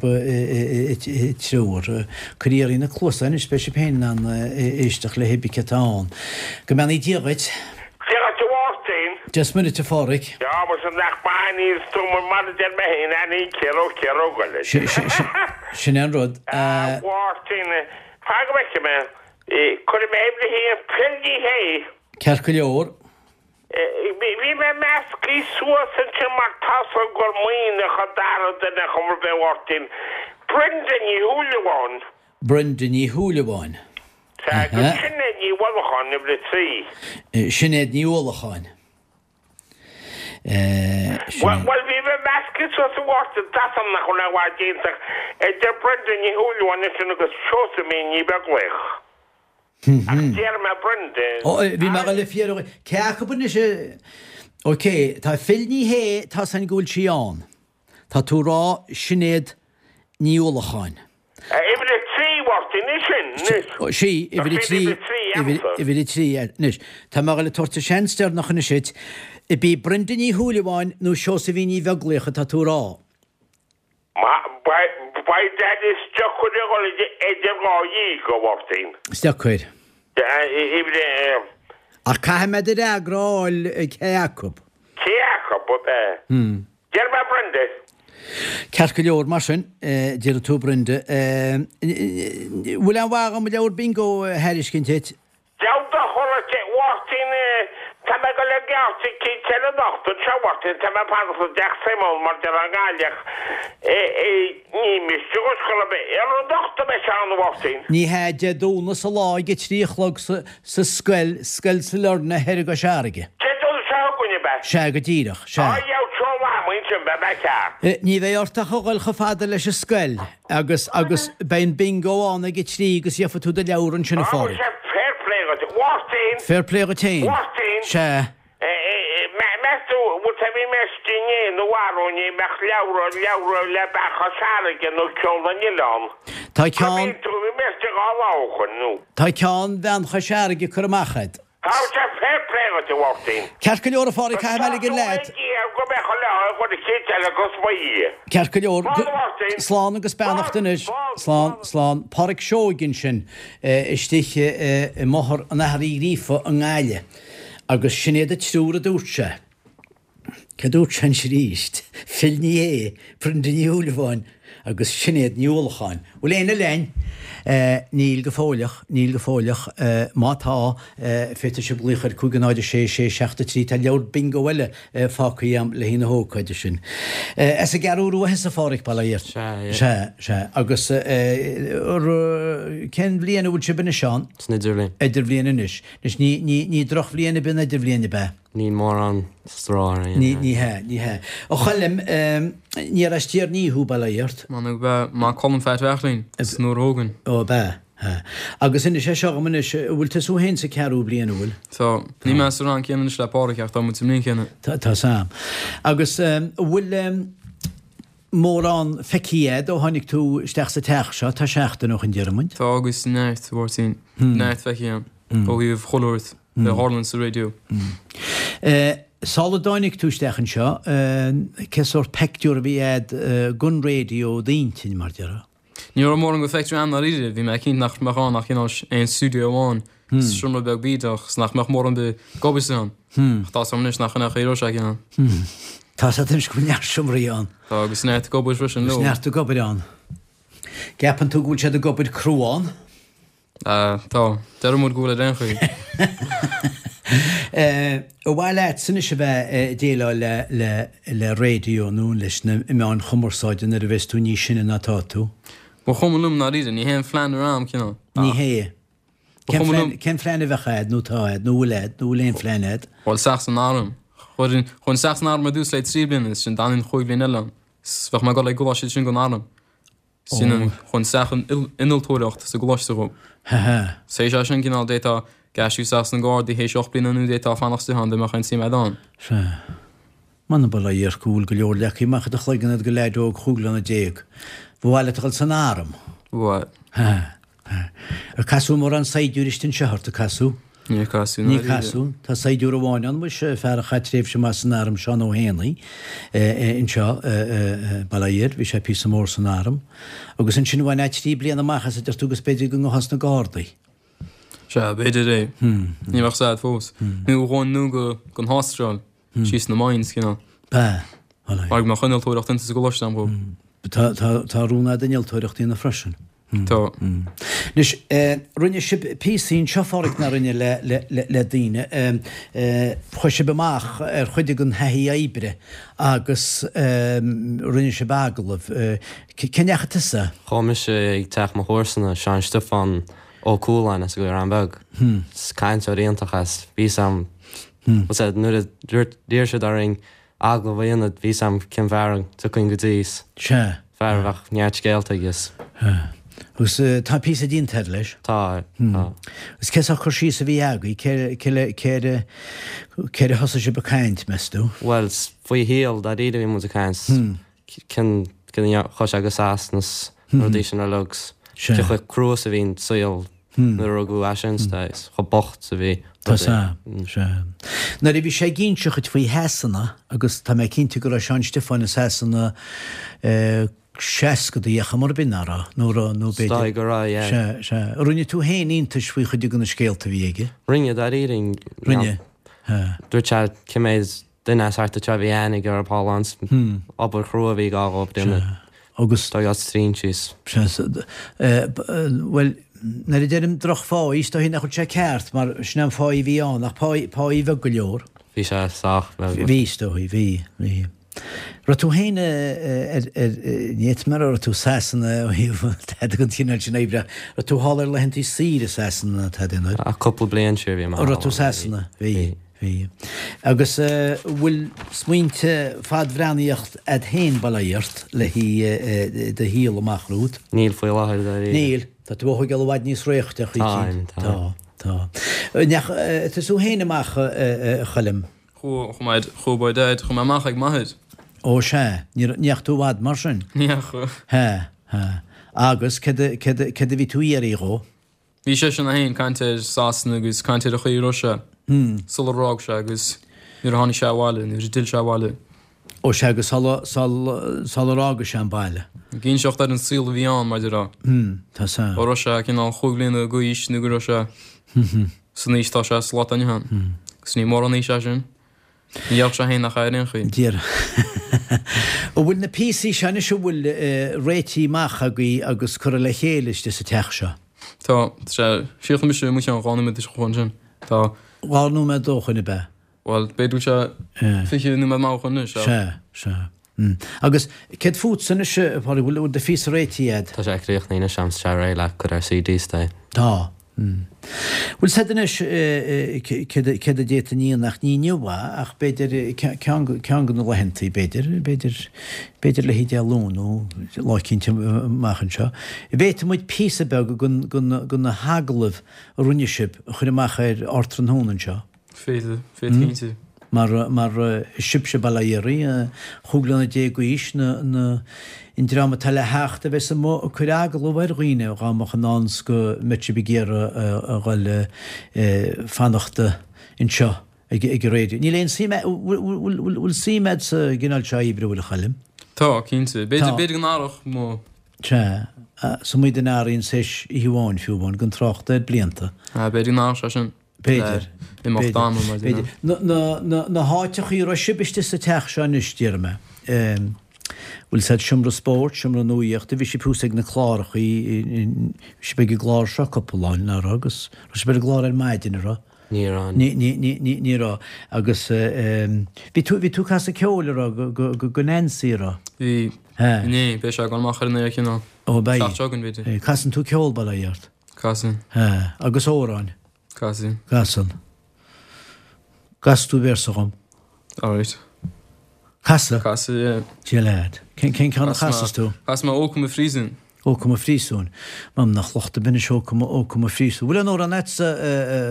treoir. Cuir iarraidh na cluasáin anois beidh sibh féin in ann éisteacht le hébí céard atá ann. Go mbeannaí Dia dhuit. Dia dhuit a Mháirtín. Dia 's Muire duit a Pháraic. Á, muise nach maith an tú mar a deir mé féin, aithníonn ciarróg ciarróg eile. Sin é an rud. A Mháirtín, fan go bhfeicfidh mé. Cuirfidh mé uimhir a haon Phil Ní Shé. Ceart go leor. Bhí mé measctha suas ansin mar tá's agam gur Muimhneach an dara duine chuma ar bith a Mháirtín. Brenda Ní Shúilleabháin. Brenda Ní Shúilleabháin. Sea, agus Sinéad Ní Uallacháin, uimhir a 3. Sinéad Ní Uallacháin. Sinéad. Bhuel, bhí mé measctha suas a Mháirtín, tá's agam nach bhfuil a dhath déanta idir Brenda Ní Shúilleabháin ansin agus Seosaimhín Ní Bheaglaoich. Ach déarfaidh mé Brenda. Ó, bhí mé ag dul a fiafraí, cé acu anois a, ok, tá Phil Ní Shé, tá's againn go bhfuil sí ann. Tá tú ag rá Sinéad Ní Uallacháin. Uimhir a 3, a Mháirtín, í sin, anois. Sí, uimhir a 3, uimhir a 3, anois. Tá mé ag dul a tabhairt an seans deireanach anois duit. Ab í Brenda Ní Shúilleabháin nó Seosaimhín Ní Bheaglaoich atá tú a rá? Beidh Daddy is deacair a dhul idir dhá dhíog, a Mháirtín. Is deacair. Ach caithfidh mé do fhreagra a fháil cé acu. Cé acu, ab ea? Déarfaidh mé Brenda. Ceart go leor, mar sin, déarfaidh tú Brenda. Bhfuil aon mhaith dhom leabhar bingo a thairiscint duit? Deabhal do thoradh a Mháirtín, tá mé ag dul ag geábh eicínt eile anocht anseo, a Mháirtín, tá mé ag fanacht i dteach Simon mar deir an Gaillimheach, ní miste dhuit chor ar bith, ar anocht a bheidh sé ann, a Mháirtín? Ní hea, Dé Domhnaigh sa lá ag a 3 a chlog sa scoil, Scoil Sailearna thoir i gCois Fharraige. Dé Domhnaigh seo chugainn, ab ea? Sea, go díreach, sea. Á, gheobhaidh seol am ansin, beidh mé ceart. Ní bheidh ort ach a dhul chomh fada leis an scoil. Agus, agus, beidh an bingo ann ag a trí agus gheofaidh tú do leabhar ansin, a Pháraic. Sea, fair play dhuit. A Mháirtín! Fair play dhuit fhéin. A Mháirtín! Sea. Meas tú, bhfuil sé, bhí mé istigh inné nó arú inné, mbeadh leabhra, leabhra le Bean Chois Fharraige nó Ceol na nOileán. Tá ceann. Bhí mé istigh dhá lá ó shoin, nó. Tá ceann Bhean Chois Fharraige curtha amach a'd. Tá sé fair play dhuit, a Mháirtín. Ceart go leor, a Pháraic, caithfidh mé ligean leat. Go mbeadh an lá ag an chéad eile agus mo Dhia. Ceart go leor. Slán, a Mháirtín. Slán agus beannacht anois. Slán, slán. Páraic Seoighe ansin, istigh i mBóthar an Athar Uí Ghríofa i nGaillimh. Agus sin iad an triúr a dúirt sé. Cé dúirt sé anois arís? Phil Ní Sheaghdha, Brenda Ní Shúilleabháin agus Sinéad Ní Uallacháin. Bhfuil éinne linn? Níl go fóilleach, níl go fóilleach. Má tá, féadfaidh sibh glaoch ar 5 0 6 6 7 3. Tá leabhar bingo eile fágtha agam le haghaidh na hócáide sin. As an gCeathrú Rua thusa, a Pháraic, bail ó Dhia ort. Sea, yeah. Sea, sea. Agus cén bhliain a bhfuil sibh anois ann? San idirbhliain. Idirbhliain anois. Anois, ní, ní, ní drochbhliain ab í an idirbhliain, ab ea? Níl mórán stró orainn. Ní, ní hea, ní hea. A Choilm, ní as Tír an Fhia thú, bail ó Dhia ort? M'anam gurb ea, Maigh Cuilinn Fear Bheachlín, is nuair a thógainn. Ó, ab ea, hea. Agus inis é seo dhom anois, an bhfuil tusa féin sa ceathrú bliain, an bhfuil? Tá. Níl mé sa rang céanna anois le Páraic ach tá muid sa mbliain chéanna. Tá, tá 's a'm. Agus an bhfuil mórán feicthe a'd ó tháinig tú isteach sa teach seo, tá seachtain ó shoin déarfaidh muid? Tá agus neart, a Mháirtín. Neart feicthe a'm ó thaobh chuile shórt. A tharlaíonn sa raidió. Sula dtáinig tú isteach anseo, cé sórt peictiúr a bhí a'd gon raidió i d'intinn, mar déarfá? Ní raibh mórán go phictiúr a'm ndáiríre, bhí mé cinnte nach mbeadh ann ach cineál aon stiúideo amháin, seomra beag bídeach, 's nach mbeadh mórán bith g'obair ann. Ach tá's a'm anois nach in é a raibh sé cineál. Tá's a'd anois go bhfuil neart seomraí ann. Tá, agus neart ag obair freisin leo. Agus neart ag obair ann. Gceapann tú go bhfuil siad ag obair crua ann? Tá. Deir muid go bhfuil ar aon chaoi. Ar mhaith leatsa anois a bheith ag déileáil le raidió nó leis na meáin chumarsáide nuair a bheas tú níos sine ná tá tú? Ba chuma liom ndáiríre, ní hé an phlean ar am, cineál. Ní hé. Cén phlean a bheadh a'd nó atá a'd nó bhfuil a'd nó bhfuil aon phlean a'd? Bhuel, isteach san arm. Chuaigh isteach san arm ar dtús le 3 bliana is sin d'fhanfainn chúig bhliain eile ann. 'S bheadh mé ag dul ag gcoláiste sin gon arm. Sin an chun isteach an innealtóireacht sa gcoláiste dhó. 'S théis é sin cineál d'fhéadfá aistriú isteach sna Gardaí théis 8 bliana nó d'fhéadfá fanacht istigh ann dá mbeadh aon suim a'd ann. Sea. M'anam bail ó Dhia ort go bhfuil go leor leagtha amach i do chloigeann a'd go leaid óg chúig bliana déag. Ba mhaith leat a dhul san arm? Ba mhaith. Sea. Ar casadh mórán saighdiúirí istigh anseo ort, ar casadh? Níor casadh, Níor casadh. Tá saighdiúir amháin ann, muis, fear a chaith tréimhse maith san arm, Seán Ó hÉanaí, anseo i Baile Átha Fhirdh, bhí sé píosa mór san arm. Agus ansin bhainfeá 3 bliana amach as, a deir tú, agus b'fhéidir go ngabhfá sna Gardaí. Sea, b'fhéidir é. Ní bheadh 's a'd fós. Nó ghabhfainn nó go don Astráil, síos sna mines, cineál. Ba. Mar go mbeadh innealtóireacht insa sa gcoláiste agam dhó. Tá, tá, tá rún a'd innealtóireacht a dhéanamh freisin. Tá. Anois, rinne sibh píosaí anseo, a Pháraic, ná rinne, le daoine. Chuaigh sibh amach ar chuid den thaithí oibre agus rinne sibh agallamh. Cá ndeachaigh tusa? Chuaigh mise ag teach mo chomharsana, Seán Stiofán Ó Cualáin as an gCaorán Beag. Is cainteoir iontach é. Bhí 's a'm, nuair a d'iarr siad orainn agallamh a dhéanamh, bhí 's a'm cén fear a dtiocfainn go dtí, 's Sea. fear a bheadh neart scéalta aige 's. Sea. Agus tá píosa déanta air leis? Tá, tá. Agus cé sórt cur síos a bhí agaibh, cé, cé le, cé ar a, cé ar a thosaigh sibh ag caint, meas tú? Bhuel, 's faoi a shaol, dáiríre a bhí muid ag caint, 's cén, cén, chuaigh sé go Sasana 's na rudaí sin uilig 's Sea. cé chomh crua 's a bhí an saol Nuair a rugadh eisean is chomh bocht 's a bhí Tá sea, sea. Nuair a bhí sé ag inseacht faoi Shasana, agus tá mé cinnte go raibh Seán Stiofáin i Sasana seascadaí ar chuma ar bith, ná raibh? Nó raibh, nó b'fhéidir. Is dóigh go raibh, yeah. Sea, sea. Rinne tú féin iontais faoi chuid de na scéalta a bhí aige? Rinne, dáiríre. Rinne, sea. Dúirt sé cé mhéad duine as thart anseo a bhí aithne aige orthu thall ann, obair chrua a bhí ag gabháil dhóibh déanamh. Agus. Dá as trín síos. Sea, bhuel, nuair a deirim drochpháí, is dóichí nach bhfuil sé ceart, mar sin an pháí a bhí ann, ach páí, páí bheag go leor. Bhí sé sách beag. Bhí, is dóichí, bhí, bhí. Raibh tú féin ar, ar, ní fhéadfaidh mé a rá raibh tú i Sasana ó thaobh tada den chineál sin oibre, raibh tú thall ar laethantaí saoire i Sasana nó tada, an raibh? Cúpla bliain siar bhí mé thall. Raibh tú i Sasana? Bhí. Bhí. Agus bhfuil smaointe fadbhreathnaíocht a'd féin, bail ó Dhia ort, le haghaidh do shaol amach romhat? Níl faoi láthair, dáiríre. Níl. Tá tú ag dul i bhfad níos réichte, a Táim, tá. Tá, tá. Ndeach tusa féin amach, a Choilm? Chuaigh, chuaigh mé, chuaigh boy dad, chuaigh mé amach ag m'athair. Ó sea. Ní ndeach tú i bhfad mar sin? Ní dheachaigh. Hea, hea. Agus céard a, céard a, céard a bhí tú a iarraidh dhó? Bhí seisean é féin ag caint ar Sasana agus caint ar an chaoi a raibh sé sular fhág sé agus nuair a tháinig sé abhaile, nuair a d'fhill sé abhaile. Ó sea, agus sula, sular fhága sé an baile. Ag inseacht ar an saol a bhí ann, mar a déarfá. Tá sea. Ó raibh sé cineál chúig bhliana d'aois nó go raibh sé san aois atá sé sa lá atá inniu ann. Agus ní mórán aois é sin. Ní dhéarfadh sé féin nach ea ar aon chaoi. Dear. An bhfuil na píosaí seo anois an bhfuil réitithe amach agaibh agus curtha le chéile istigh sa teach seo? Tá. Tá sé. Chríochnaigh mise mo cheann 2 nóiméad ó shoin ansin. Tá. 2 nóiméad ó shoin ab ea? Bhuel, b'fhéidir go bhfuil sé 20 nóiméad maith ó shoin anois. Sea, sea. Agus céard fútsa anois, a Phádraig, bhfuil do phíosa réitithe a'd? Tá sé críochnaithe anois a'm, tá sé réidh le cur ar CD is é. Tá. Bhfuil 's a'd anois céard a d'fhéadfainn a dhéanamh ach ní inniu é ach b'fhéidir ceann ceann de na laethantaí b'fhéidir, b'fhéidir, b'fhéidir le haghaidh Dé Luain nó lá eicínt amach anseo. Bhféadfadh muid píosa beag de na hagallaimh a rinne sibh a chur amach ar Ardtráthnóna anseo. Féadfaidh, féadfaidh cinnte. Mar, mar sibhse bail ó Dhia oraibh, an chúig bliana déag d'aois, na, na, an dream atá le theacht a bheas amuigh ag cur agallamh ar dhaoine dhá mbeadh i ndán 's go mbeadh sibh ag iarraidh a dhul fanacht anseo ag an raidió. Níl aon suim, bhfuil, bhfuil suim a'd sa gcineál seo oibre, bhfuil a Choilm? Tá, cinnte. B'fhéidir, b'fhéidir go n-athródh mo. Sea, is iomaí duine a athraíonn tar éis oíche amháin fiú amháin, gan trácht ar blianta. B'fhéidir go n-athródh sé sin. B'fhéidir. Le imeacht ama, mar B'fhéidir. Na háiteachaí a raibh sibh istigh sa teach seo anois, déarfaidh mé. Bhfuil 'fhios a'd seomra spóirt, seomra nuaíochta, bhí sibh thuas ag na clárachaí, bhí sibh ag an gclár seo cúpla lá, nach raibh, agus raibh sibh ar an gclár ar maidin, an raibh? Ní raibh. Ní, ní, ní, ní, ní raibh. Agus bhí tú, bhí tú ag casadh ceoil, an raibh, go, go, go Nancy, an raibh? Bhí. Inné, beidh sé ag dul amach ar an aer cineál. Ó, beidh. Seacht seo againn, b'fhéidir. Casann tú ceol, bail ó Dhia ort? Casann. Agus amhráin? Casann. Casann. Gcasfaidh tú véarsa dhom? Alright. Casadh? Casadh, yeah. Dia leat. Cén ceann a chasas tú? Chas mé Ó Cum a Phríosúin. Ó Cum a Phríosúin. M'anam nach locht ar bith anois Ó Cum Ó Cum a Phríosúin. Bhfuil aon amhrán a'dsa,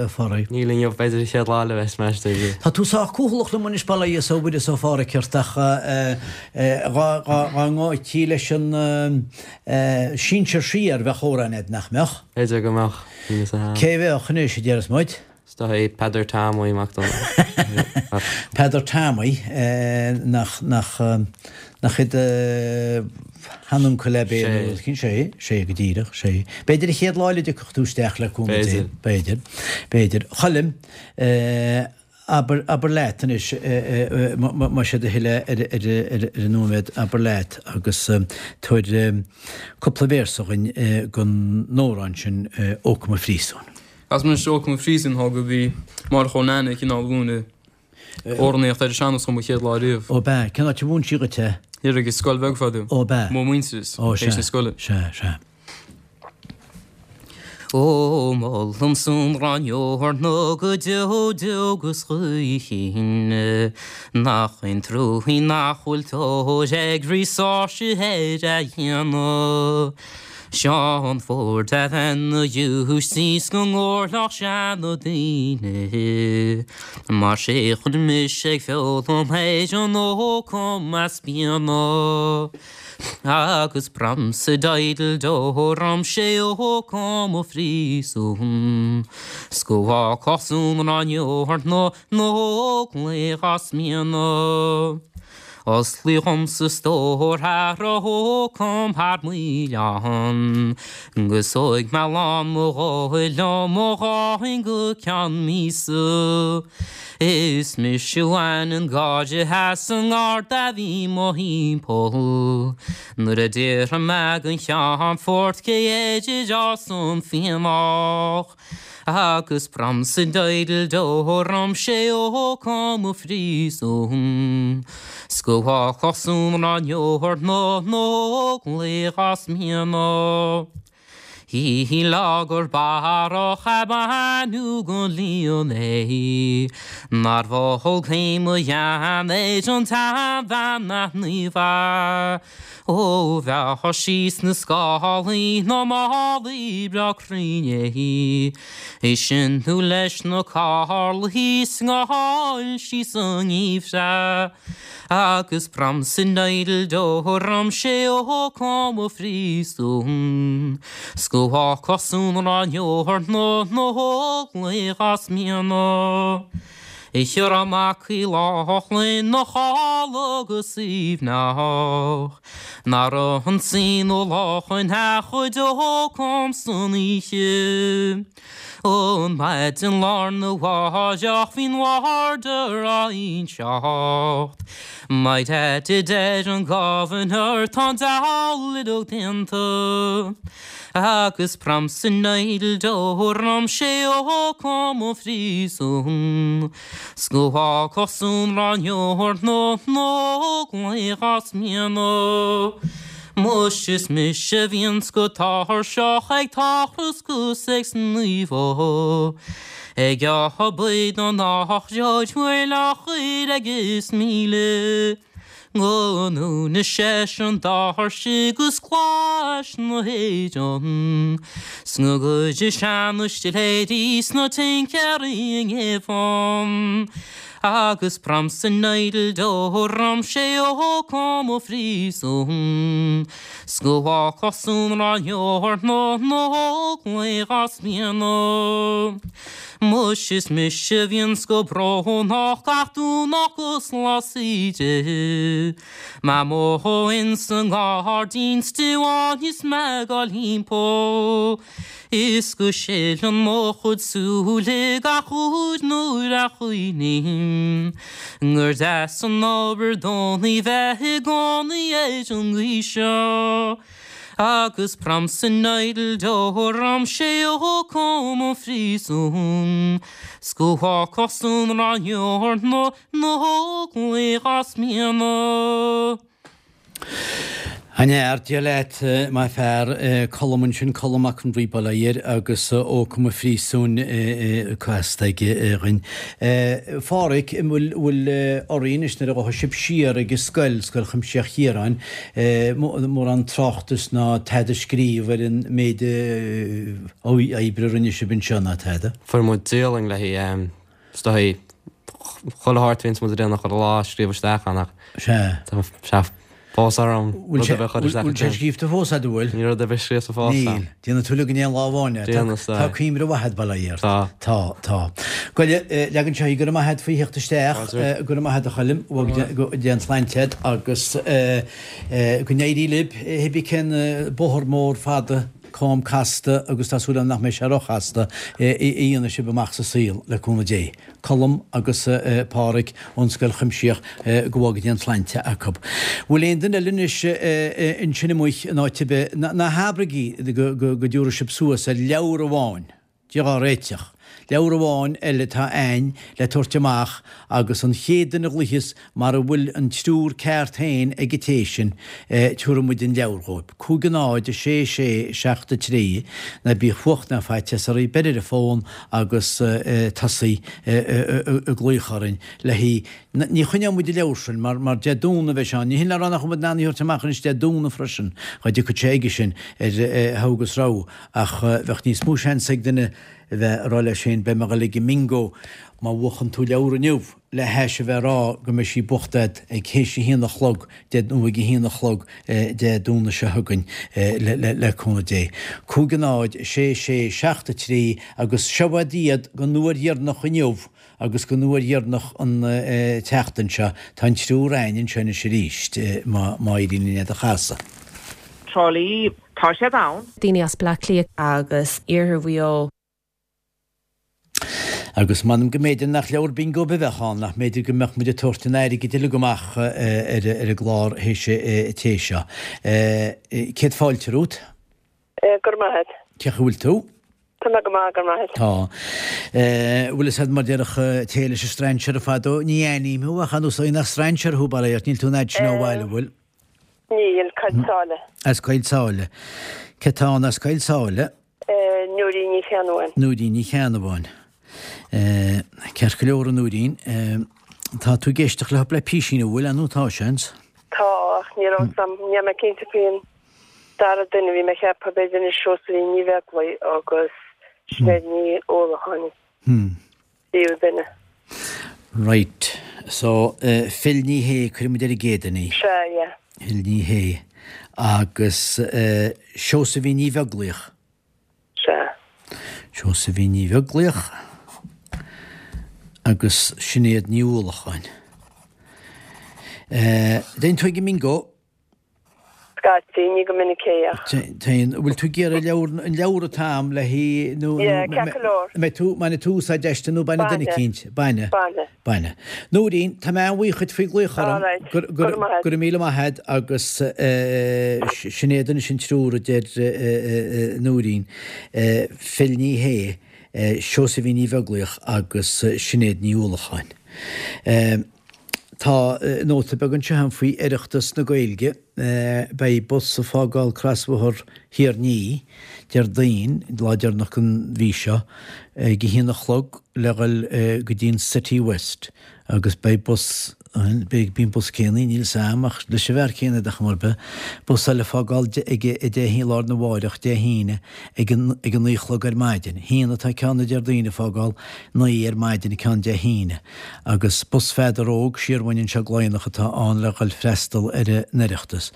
a Phádraig? Níl inniu, b'fhéidir an chéad lá eile bheas mé istigh. Tá tú sách cúthalach liom anois, bail ó Dhia 's ó Mhuire 's ó Phádhraic ort ach dhá ngabhtí leis an sinsear siar, bheadh amhrán a'd, nach mbeadh? B'fhéidir go mbeadh, níl fhios a'm. Cé bheadh anois, a déarfas muid? Is dóigh é Peadar Tomaí Mac Donncha. Peadar Tomaí, nach, nach, nach é do sheanuncail ab é nó rud éicint? Sé, sé go díreach, sé. B'fhéidir an chéad lá eile a dtiocfadh tú isteach le cúnamh Dé. B'fhéidir. B'fhéidir, b'fhéidir. Choilm, Abair, abair leat anois, más é do thoil é ar an nóiméad, abair leat agus tabhair cúpla véarsa dhuinn den amhrán sin Ó Cum a Phríosúin. As anois Ó Cum a Phríosúin thá go bhí Máire Chóil Nanny ag cineál mhúineadh amhránaíocht ar an sean-nós dhom an chéad lá riamh. Ó b'ea, cén áit a mhúin sí dhuit é? Thiar ag an scoil bheag fadó. Ó b'ea. Mo mhuintearas, Ó sea, théis na scoile. sea, sea. Ó, molaim san Ráineoir go deo deo 'gus choíchin, Nach é an truaigh nach bhfuil tóir ag Rí Seoirse ar a dhéanamh. Seán Ford a bheith 'na ghiúistís go ngóirleach seana daoine, Mar sé chuir mise ag foghlaim ar an ócam as bíona. Agus bramsa diddle do ram sé ó com a phríosún 's go bhfágfadh san ráineoir na n-óglaigh as mianadh. Osclaíodh dhomsa stór thar ó com thar m'oileán 'gus thóig mé lán mo dhóthain liom ó dháin go ceann míosa. Is mise a bhain an gáire as an ngarda a bhí mo thimpeall nuair a d'fhiafraigh mé den cheannfort cé air a d'fhás an fíonach agus bramsa diddle do ram sé ó com a phríosún 's go bhfágfadh san ráineoir na n-óglaigh as mianadh. Hí lá gur barrach a baineadh den líon é, nár mhol cé mo dhean ar an tseanbhean naofa. Ó bheadh sí sna scálaí ná málaí breá cruinn é, é sin nó leis na carlaí 's ngáil sí sa ngeimhreadh. Agus bramsa diddle do ram sé ó com a phríosún 's go bhfágfadh san ráineoir na n-óglaigh as mianadh. Chiara Mac Uí Lochlainn na chodladh go suaimhneach Nár ionsaigh na lachain a chuid ócam san oíche. An maidin lá arna mháireach bhí'n warder á inseacht My dad a deir an governor tá an diabhal uileag déanta Agus bramsa diddle do ram sé ó com an phríosún 'S go bhfágfadh san ráineoir na n-óglaigh as mianadh Muis is mise a bhíonns go tuirseach ag tochras 'gus ag sníomhadh Ag obair don eachróid bhfuil á chur agus 1000 Go ndúna seisean doirse 'gus clais na hÉireann 'S go gcuire seana-stiléirí 's na tincéirí i ngéibheann. Agus Pramson Idle do ram sé ó com ó phríosún 's go bhfágfadh san ráineoir ná ná glaoch as mianadh. Muis is mise a bhíonns go brónach gach Domhnach 'gus lá saoire. Mé amuigh ins an ngairdín stiabháin is mé ag dul thimpeall. Is go sileann mo chuid súile gach uair nuair a chuimhním gur deas an obair Domhnaigh bheith i gcónaí ar an gcaoi seo. Agus Pramson Idle do ram sé ó com an phríosúin 's go bhfágfadh san ráineoir na nÓglaigh as mianadh. An fhear, Dia leat, my fear, Colm ansin, Colm Mac an Rí bail ó Dhia air agus Ó Com an Phríosúin casta aige dhuinn. Pháraic, an bhfuil, bhfuil oraibh anois nuair a ghabhfaidh sibh siar ag an scoil, Scoil Chuimsitheach Chiaráin, mórán tráchtas ná tada a scríobh ar an méid oibre a rinne sibh anseo ná tada? Fuair muid dialann le haghaidh Is dóigh, chuile shórt a bhíonns muid ag déanamh chuile lá a scríobh isteach ann ach Sea. tá sé fós orm rud ar bith a chur isteach Bhfuil sé scríobhta fós a'd, an bhfuil? Níl rud ar bith scríofa fós a'm. Níl. Déanfaidh tú uilig in aon lá amháin é. Déanfaidh, sea. Tá cuimhne mhaith a'd, bail ó Dhia ort. Tá. Tá, tá. Goile, leag anseo í, go raibh maith a'd faoi theacht isteach. Go raibh maith a'd a Choilm, go dté an tsláinte a'd agus go n-éirí libh, cibé cén bóthar mór fada cam casta agus tá súil agam nach mbeidh sé róchasta, a dhéanfaidh sibh amach sa saol, le cúnamh Dé. Colm agus Páraic ón Scoil Chuimsitheach, go bhfága Dia an tsláinte acu. Bhfuil aon duine eile anois ansin amuigh in áit ar bith, ná habraigí go dtiúrfaidh sibh suas ar leabhar amháin, Dia dhá réiteach. Leabhar amháin eile atá a'ainn le tabhairt amach agus an chéad duine a ghlaoicheas mara bhfuil an triúr ceart féin ag an té sin, tiúrfaidh muid an leabhar dhóib. 5 0 6 6 7 3 Ná bíodh fuacht ná faitíos oraibh, beir ar an bhfón agus tosaigh ag glaoch orainn le haghaidh Ní choinneoidh muid an leabhar sin mar mar Dé Domhnaigh a bheidh sé ann. Ní hin le rá nach bhfuil muid in ann í a thabhairt amach anois Dé Domhnaigh freisin, dá dtiocfadh sé aige sin ar thogha agus rogha, ach bheadh níos mó seans ag duine a bheith ag rá leis féin beidh mé ag dul ag an mbingo má bhuachann tú leabhar inniu le hais a bheith ag rá go mbeidh sí buachta agat ag théis a haon a chlog Dé nó ag a haon a chlog Dé Domhnaigh seo chugainn le cúnamh Dé. 5 0 6 6 7 3 agus seo iad don uair dheireanach inniu Agus don uair dheireanach an tseachtain seo, tá an triúr a'ainn anseo anois arís, má éiríonn linn iad a chasadh. Trá Lí, tá siad ann. Daoine as Bleá Cliath. Agus Iarthar Mhaigh Eo. Agus m'anam go mb'fhéidir nach leabhar bingo ar bith a bheadh ann, nach mb'fhéidir go mbeadh muid ag tabhairt an airgid uilig amach ar an gclár théis an tae seo. Céad fáilte romhat. Go raibh maith a't. Cén chaoi a bhfuil tú? Tá mé go maith, go raibh maith a't. Tá. Bhfuil fhios a'd mar déarfadh té leis an strainséir fadó, ní aithním thú ach ar nós nach strainséir thú, bail ó Dhia ort, níl tú an fhad sin ó bhaile, bhfuil? Níl, Coill Sáile. As Coill Sáile. Cé tá ann as Coill Sáile? Nóirín Ní Cheannabháin. Nóirín Ní Cheannabháin. Ceart go leor a Nóirín. Tá tú ag éisteacht le cúpla písín, an bhfuil, nó tá seans? Tá, ach ní raibh 'fhios a'm, níl mé cinnte faoin dara duine, bhí mé ag ceapadh b'fhéidir anois Seosaimhín Ní Bheaglaoich agus Sinéad Ní Uallacháin, tríú duine. Right. So, Phil Ní Shé, cuirfidh muid ar an gcéad duine í. Sea, yeah. Phil Ní Shé. Agus Seosaimhín Ní Bheaglaoich. Sea. Seosaimhín Ní Bheaglaoich agus Sinéad Ní Uallacháin. Dtéann tú ag an mbingo? Scaití, ní go minic é ach. Téann. Bhfuil tú ag iarraidh leabhar, an leabhar atá a'm le hí nó, nó, Yeah, ceart go leor. mbeidh tú, mbainfidh tú úsáid aisti nó bainfidh duine Bainfidh. eicínt? Bainfidh. Bainfidh. Bainfidh. Nóirín, tá mé an-bhuíoch dhuit faoi glaoch orm. All right. Go raibh maith a't. Go raibh míle maith a't agus Sinéad anois an triúr a deir Nóirín, Phil Ní Shé, Seosaimhín Ní Bheaglaoich agus Sinéad Ní Uallacháin. Tá nóta beag anseo agam faoi Oireachtas na Gaeilge. Beidh bus ag fágáil Crosbhóthar Thír an Fhia Déardaoin, lá deireanach den mhí seo, ag a haon a chlog le dhul go dtí an Citywest agus beidh bus. Bíonn bus céanna, níl 's a'm ach leis an bhfear céanna ar chuma ar bith, bus eile ag fágáil ag a deich i lár na mháireach Dé hAoine ag an ag a naoi a chlog ar maidin. Haon atá ceann na Déardaoin ag fágáil naoi ar maidin ceann Dé hAoine. Agus bus Pheadar Óg siar uainn anseo go Laighneach atá ann le dhul freastal ar an Oireachtas.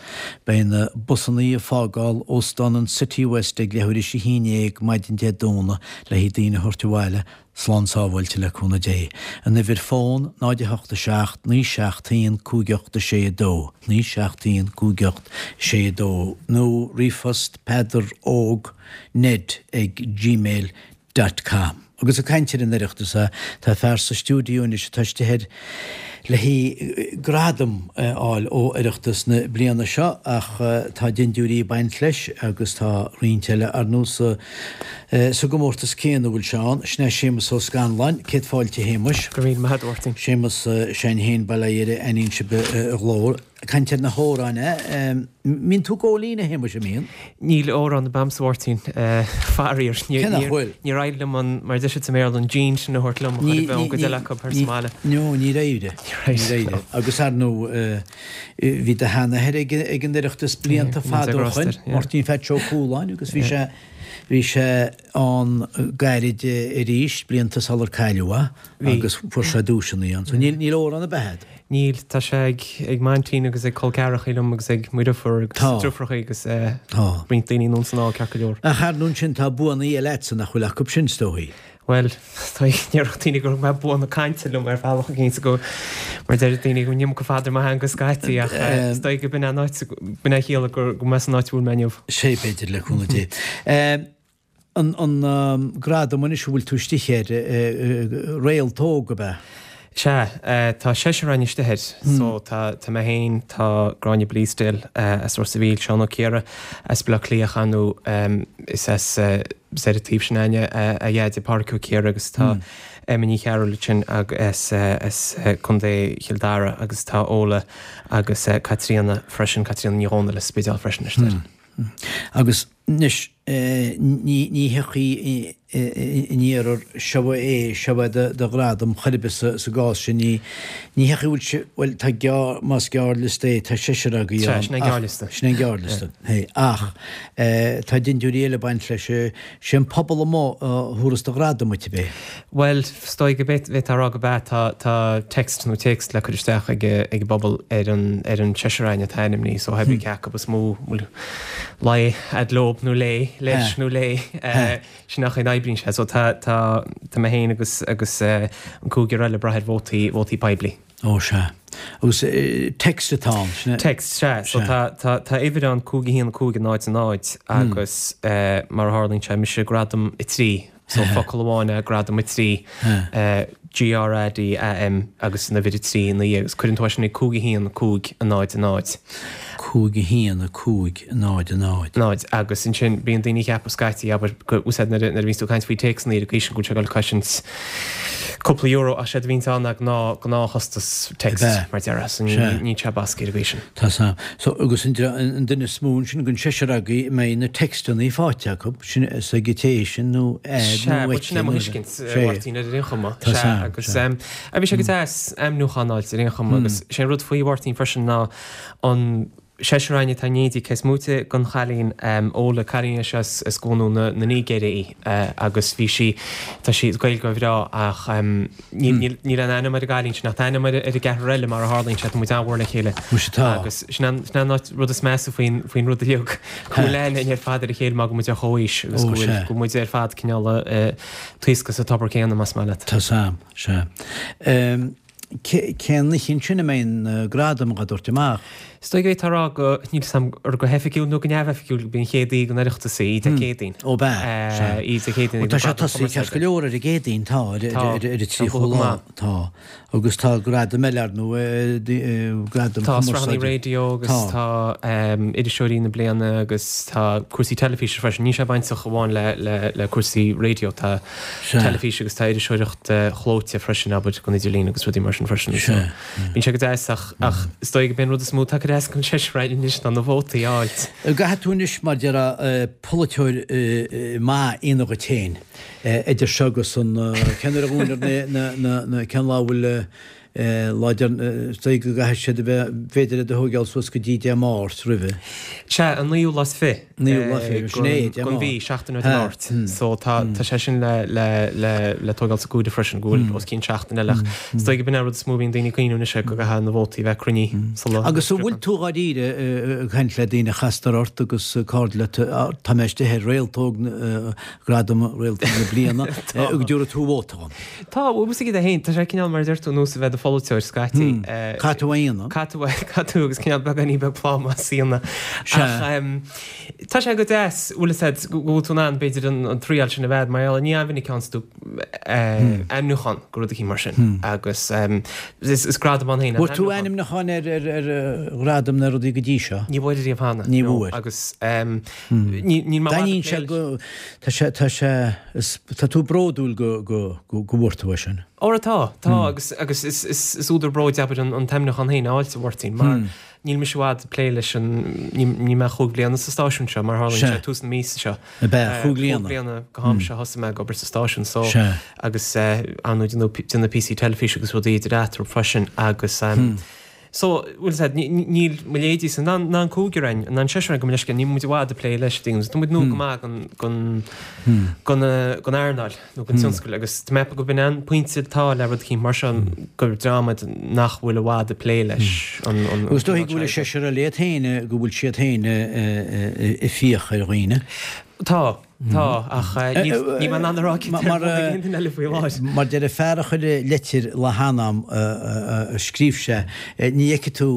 Beidh na busannaí ag fágáil Óstán an City West ag leathuair théis a haon dhéag maidin Dé Domhnaigh le haghaidh daoine a thabhairt abhaile slán sábháilte le cúnamh Dé. An uimhir fón, 0 8 7 9 7 1 5 8 6 2, 9 7 1 5 8 6 2, nó ríomhphost Peadar Óg Ned ag gmail dot com. Agus ag caint ar an Oireachtas, tá fear sa stiúideo anois atá istigh air le haghaidh gradam a fháil ó Oireachtas na bliana seo ach tá dindiúirí ag baint leis agus tá roinnt eile ar ndóigh sa sa gcomórtas céanna a bhfuil sé ann. Sin é Séamus Ó Scanláin. Céad fáilte a Shéamuis. Go raibh míle maith agat a Mháirtín. Séamus s'againn féin Baile Oidhre, aithníonn sibh a ghlór. Caint ar na hamhráin, eh? Mbíonn tú ag gabháil fhoinn, a Shéamuis, an mbíonn? Níl amhrán ar bith a'msa, a Mháirtín, faraor. Cé nach bhfuil? Níor éirigh liom an, mar a deir siad sa mBéarla, an gene sin a thabhairt liom a chur i bhfeidhm go deile acu thar sa mbaile. No, níor éirigh. Níor éirigh. Agus ar ndóigh, bhí do sheanathair ag an Oireachtas blianta fada ó shoin, Máirtín Pheaits Ó Cualáin, agus bhí sé, bhí sé ann gairid arís, blianta sular cailleadh é, agus fuair sé duaiseanna ann. So níl, níl amhrán ar bith a'd. Níl, tá sé ag, ag m'aintín agus ag col ceathrachaí liom agus ag mo dheirfiúr agus Tá. deirfiúrachaí agus Tá. roinnt daoine anonn 's anall ceart go leor. Ach ar ndóigh ansin tá buannaí eile a'dsa nach bhfuil acu sin, is dóichí. Bhuel, tá, déarfadh daoine go raibh bua na cainte liom ar bhealach éicint go, mar deir daoine go mbíonn iomarca fada ar mo theanga scaití ach is dóigh go b'in é an áit, b'in é a chiallaigh go, go mbeadh san áit a bhfuil mé inniu. Sé b'fhéidir le cúnamh Dé. An gradam anois a bhfuil tú istigh air, Réalt Óg, ab ea? Sea, tá seisear againn istigh air. So tá mé féin, tá Gráinne Bleasdale as Ros a' Mhíl, Seán Ó Ciardha as Baile Átha Cliath, ar ndóigh is as is ar an taobh sin againne a dheaide Pádraic Ó Ciardha agus tá Emma Ní Chearúil ansin as as Contae Chill Dara agus tá Ola agus Caitríona freisin, Caitríona Ní Dhomhnaill as Spidéal freisin istigh air. Agus anois, ní thiocfaidh in iarthar, seo é, seo é do ghradam chor ar bith sa gcás sin, ní thiocfaidh, bhfuil sé, bhuel, tá gearr, más gearrliosta é, tá seisear agaibh ann. Sea, sin é an gearrliosta. Sin é an gearrliosta, ach tá dindiúirí eile ag baint leis, sé an pobal amuigh a thabharfas do ghradam duit, ab é? Bhuel, is dóigh go bhféadfá a rá go b'ea. Tá, tá text nó téacs le cur isteach ag ag an bpobal ar an, ar an seisear againn atá ainmnithe, so cibé cé acu is mó bhfuil luí a'd leob nó léi, leis nó léi, sin an chaoi a n-oibríonn sé. So tá, tá, tá mé féin agus, agus an cúigear eile ag brath ar vótaí, vótaí poiblí. Ó, sea. Agus text atá ann, sin é? Text, sea. So tá, tá, tá uimhir ann, 5 1 5 0 0 agus mar a tharlaíonn sé, mise gradam 3. So focal amháin é gradam 3, G R A D A M agus an uimhir 3 ina dhiaidh agus cuireann tú é sin ag 5 1 5 0 0. 5 1 5 0 0. 0 agus ansin bíonn daoine ag ceapadh scaití, abair, go úsáid nuair a bhíonns tú ag caint faoi téacsanna ar an gcaoi sin go bhfuil sé ag dul a chosaint cúpla euro ach séard a bhíonns ann ná gnáth, gnáthchostas text mar déarfá so níl sé basctha ar an gcaoi sin. Tá 's a'm. So agus an duine is mó ansin den seisear agaibh a mbeidh na textanna faighte acu, sin is ag an té sin nó air nó aici. Sea, sin é mo thuiscint, a Mháirtín, ar aon chuma. Tá 's a'm. Agus bhí sé go deas ainmniúchán a fháilt ar aon chuma agus sé an rud faoi Mháirtín freisin ná an seisear againn atá in éindí cé is móite den chailín Ola, cailín é seo as gCuan na Nigéire í agus bhí sí, tá sí, Gaeilgeoir bhreá ach níl níl aon ainm ar an gcailín sin ach tá ainm ar an gceathrar eile mar a tharlaíonn sé, tá muid an-mhór le chéile. Muise tá. Agus sin an sin an áit rud is measa faoin faoin rud uilig go bhfuil aithne againn ar fad ar a chéile mar go bhfuil muid ar chomhaois agus go bhfuil go bhfuil muid ar fad cineál ag taoscadh sa tobar céanna más maith leat. Tá 's a'm, sea. Cén oíche ansin a mbeidh na gradaim á dtabhairt amach? Is dóigh go bhféadfá a rá go, níl 'fhios a'm ar go hoifigiúil nó go neamhoifigiúil, go b'í an chéad oíche den Oireachtas í, Dé Céadaoin. Ó b'ea, sea. Oíche Dé Céadaoin ag na Gradaim Chumarsáide. Tá sé tosaithe ceart go leor ar an gCéadaoin, tá, ar an 30ú lá, tá. Agus tá gradaim eile ar ndóigh, gradaim chumarsáide. Tá sraitheanna raidió agus tá iriseoirí na bliana agus tá cúrsaí teilifíse freisin. Níl sé bainteach amháin le cúrsaí raidió, tá. teilifís agus tá iriseoireacht chlóite freisin, abair, don idirlíon agus rudaí mar sin freisin. So, bíonn sé go deas ach, ach is dóigh go b'é an rud is mó atá ag cur as don seisear againn anois ná na vótaí a fháilt. Caithfidh tú anois, mar déarfá, polaiteoir maith a dhéanamh dhuit féin idir seo agus an, cén uair a dhúnfar na, na, na, cén lá a bhfuil. Lá deireanach, is dóigh go gcaithfidh siad a bheith, b'fhéidir iad a thóigeáil suas go dtí Dé Máirt roimhe. Sea, an naoú lá is fi. Naoú lá fi, sin é, Dé Máirt. Gon mhí, seachtain ó Dé Máirt. So tá tá sé sin le le le le tóigeáil sa gcomhaireamh freisin, go bhfuil os cionn seachtain eile ach is dóigh go b'in é an rud is mó a bhíonn daoine ag cuimhniú anois é go gcaithfidh na vótaí a bheith cruinnithe sula Agus an bhfuil tú dháiríre ag caint le daoine a chastar ort agus cairde leat, tá mé istigh ar Réaltóg, Gradam Réaltóg na Bliana, go dtabharfaidh tú vóta dhom? Tá, bhuel, is é féin, tá sé cineál mar a deir tú, nós a bheith i do pholaiteoir scaití. Caithfidh tú a dhéanamh. Caithfidh tú, caithfidh tú agus cineál beagáinín beag plámás a dhéanamh. Sea. Ach tá sé go deas, bhfuil fhios a'd, go bhfuil tú in ann b'fhéidir an triail sin a bheith, mar gheall, ní an-mhinic a fhaigheanns tú ainmniúchán go rud eicínt mar sin. Agus is gradam ann féin an Bhfuair tú ainmniúchán ar ghradam na rudaí go dtí seo? Ní bhfuair riamh cheana. Ní bhfuair. Agus níl mé D'aithníonn sé go, tá sé, tá sé, is, tá tú bródúil go, go, go, go bhfuair tú é sin. Óra tá, tá agus, agus is, is, is údar bróid abair an, an t-ainmniúchán féin a fháilt, a Mháirtín, mar níl mise i bhfad ag plé leis an, ní, níl mé ach chúig bliana sa stáisiún seo, mar tharlaíonn sé tús na míosa seo. Ab ea, chúig bliana. Chúig bliana go ham seo thosaigh mé ag obair sa stáisiún so agus ar ndóigh déanamh píosaí teilifíse agus rudaí idir eatarthu freisin agus So, bhfuil fhios a'd, níl mo leithéidí san, ná an cúigear againn, ná an seisear againn gabh mo leithscéal, níl muid i bhfad ag plé leis, things. Tá muid nua go maith gon, gon, gon, gon earnáil nó gon tionscal agus tá mé ag ceapadh go b'in an pointe atá le rud eicínt mar seo gur dream muid nach bhfuil i bhfad ag plé leis an, an, Agus is dóichí go bhfuil an seisear eile iad féin, go bhfuil siad féin ag fiach ar dhaoine. Tá. Tá, ach níl mé in ann a rá cé air aon duine eile faoi láthair. Mar deir an fear a chuir leitir le hanam a scríobh sé, ní fheicfidh tú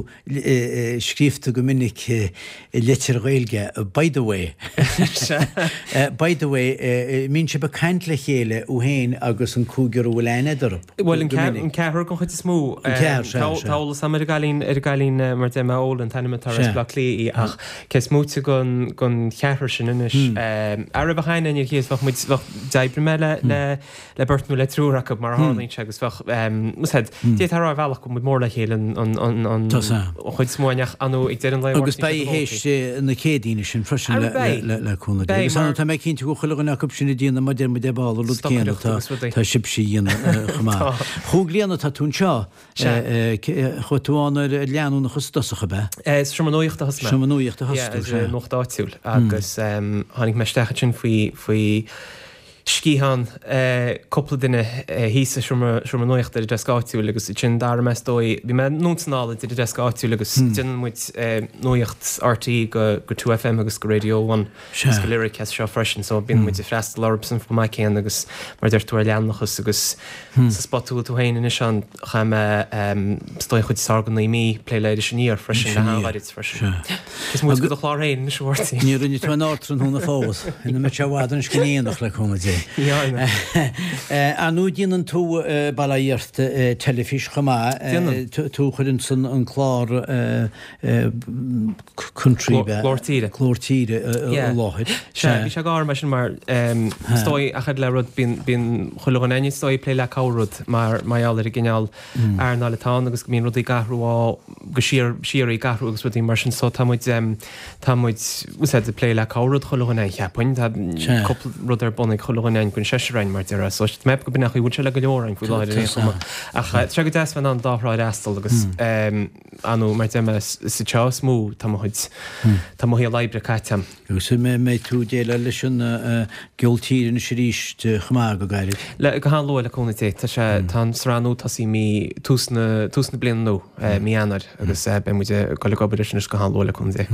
scríobhta go minic i leitir Ghaeilge 'by the way'. By the way, mbíonn sibh ag caint le chéile, thú féin agus an cúigear a bhfuil aithne a'd orthu? Bhuel, an ceathrar den chuid is mó. An ceathrar, sea, sea. Tá eolas agam ar an gcailín, ar an gcailín mar deir mé, Ola an t-ainm atá uirthi as Baile Átha Cliath í, ach cé is móite den cheathrar sin anois, ara bheadh aithne ar a chéile, bheadh muid, bheadh, d'oibrigh mé le, le, le beirt nó le triúr acu mar a tharlaíonn sé agus bheadh, bhfuil fhios a'd, d'fhéadfá a rá ar bhealach go bhfuil muid mór le chéile an, an, an, an, an chuid is mó againn ach ar ndóigh ag deireadh an lae, Agus beidh théis na Céadaoine sin freisin le cúnamh Dé. Agus tá mé cinnte go bhfuil chuile dhuine acu sin ag déanamh mar deir muid ar ball an rud céanna tá sibhse a dhéanamh chomh maith. Chúig bliana atá tú anseo. Chuaigh tú ann ar leanúnachas i dtosach, ab ea? Sa seomra nuachta a thosaigh mé. Seomra nuachta a thosaigh tú, sea. Nuacht áitiúil agus tháinig mé isteach ansin faoi faoi sciathán cúpla duine thíos sa seomra seomra nuachta ar an deasc áitiúil agus ansin d'athraigh mé is dóigh, bhí mé anonn is anall idir an deasc áitiúil agus déanann muid nuacht RTÉ go go 2FM agus go Radio One agus go Lyric as seo freisin so bíonn muid ag freastal orthu san chomh maith céanna agus mar a deir tú ar leanúnachas agus sa spot a bhfuil tú féin anois ann chaith mé is dóigh an chuid is fearr de naoi mí ag plé le Iris Aniar freisin le han-ghairid freisin. Is muid go do chlár féin anois a Mháirtín. Ní rinne tú an Ardtráthnóna fós. Ina mbeidh sé i bhfad anois go ndéanach le cúnamh Dé. Ar ndóigh déanann tú bail ó Dhia ort teilifís chomh maith. Déanann. Tú a chuireann san an clár Country. Glór Tíre. Glór Tíre i láthair. Sea, bhí sé go mar sin mar is dóigh ach le rud bíonn bíonn chuile dhuine is dóigh ag plé le corr-rud mar mar gheall ar an gcineál earnáil atá ann agus go mbíonn rudaí ag athrú á go síor síoraí ag athrú agus rudaí mar sin so tá muid tá muid bhfuil fhios a'd ag plé le corr-rud chuile dhuine cheapfainn tá cúpla rud ar bun ag chuile dhuine againn den seisear againn mar déarfá so tá mé ag ceapadh go b'in é an chaoi a bhfuil sé le go leor againn faoi láthair ar aon chuma ach tá sé go deas bheith in ann dá thrá a fhreastal agus ar ndóigh mar deir mé is anseo is mó tá mo chuid tá mo shaol oibre caite a'm. Agus an mbeidh tú ag déileáil leis an gceol tíre anois arís chomh maith go gairid? Le, go han-luath le cúnamh Dé. Tá sé, tá an sraith nua tosaithe mí, tús na, tús na bliana nua, mí Eanáir agus beidh muid ag dul ag obair leis anois go han-luath le cúnamh Dé.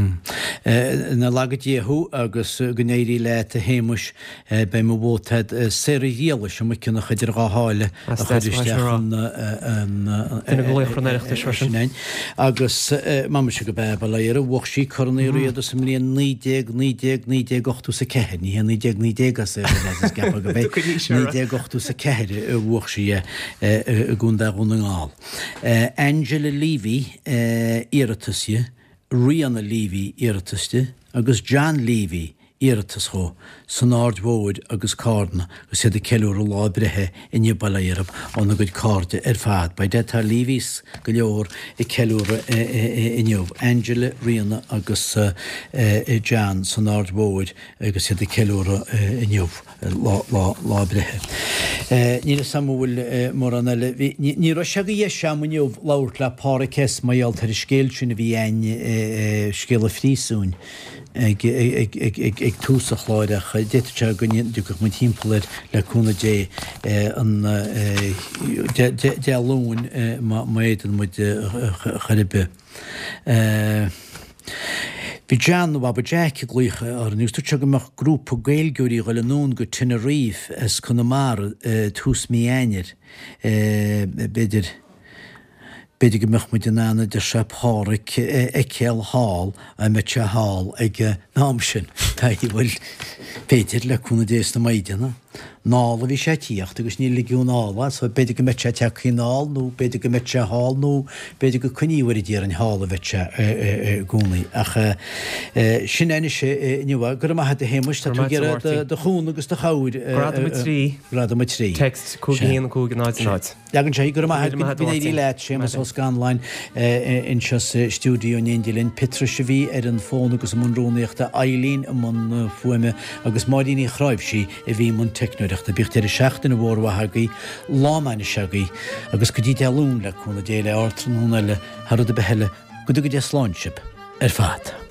Nach laga Dia thú agus go n-éirí leat a Shéamuis. Beidh mo vóta a'd Sarah Ghriallais i Maigh Cionnacha idir dhá sháile a chur isteach an Duine de laochra an Oireachtais freisin. Agus m'aimse go b'ea bail ó Dhia uirthi, bhuaigh sí Corn Uí Riada sa mbliain 1919, 1984, ní hé 1919 as é, is ceapadh go b'é 1984 a bhuaigh sí é i gContae Dhún na nGall. Angela Leavy, iarratas di, Ríona Leavy, iarratas di, agus John Leavy, iarratas dhó, san Aird Mhóir agus Cárna agus iad ag ceiliúradh lá a breithe inniu bail ó Dhia orthub óna gcuid cairde ar fad. By dad tá Leavys go leor ag ceiliúradh inniu, Angela, Ríona agus John san Aird Mhóir agus iad ag ceiliúradh inniu. Lá a breithe. Níl fhios a'm an bhfuil mórán eile. Bhí, ní raibh sé de dheis a'm inniu labhairt le Páraic S. mar gheall ar an scéal sin a bhí a'inn, scéal an phríosúin, ag, ag, ag, ag, ag tús an chláir ach d'fhéadfadh sé go dtiocfadh muid thimpeall air le cúnamh Dé an, Dé, Dé, Dé Luain má, má fhéadann muid chor ar bith. Bhí John nó Baba Jack ag glaoch orainn agus dúirt sé go mbeadh grúpa Gaeilgeoirí ag dul anonn go Tenerife as Conamara tús mí Eanáir. B'fhéidir, b'fhéidir go mbeadh muid in ann, a deir sé, Páraic a fheiceáil thall, dá mbeadh sé thall ag an am sin. Bhuel, b'fhéidir, le cúnamh Dé is na Maighdeana. Anall a bhí sé ag tíocht agus ní ligeadh anall é so b'fhéidir go mbeadh sé tagtha anall nó b'fhéidir go mbeadh sé thall nó b'fhéidir go coinníodh ar an d'iarrainn thall a bheadh sé i gcónaí. Ach sin é anois inniu é. Go raibh maith agat a Shéamuis, tá tú ag iarraidh do chúnamh agus do chabhair. Gradam 3. Gradam 3. Text 5 1 5 0 0. Leagann sé, Go raibh maith agat, go n-éirí leat, Séamus Ó Scanláin anseo sa stiúideo in éindí linn, Piotrais a bhí ar an bhfón agus i mbun rúnaíochta, Eileen i mbun fuaime agus Máirín Uí Chráimhsí a bhí i mbun teicneoireachta. Bíodh deireadh seachtaine mhór mhaith agaibh, lá an ainnise agaibh agus go dtí Dé Luain le cúnamh Dé le ardtráthnóna eile thar rud ar bith eile, go dtuga Dia slán sibh ar fad.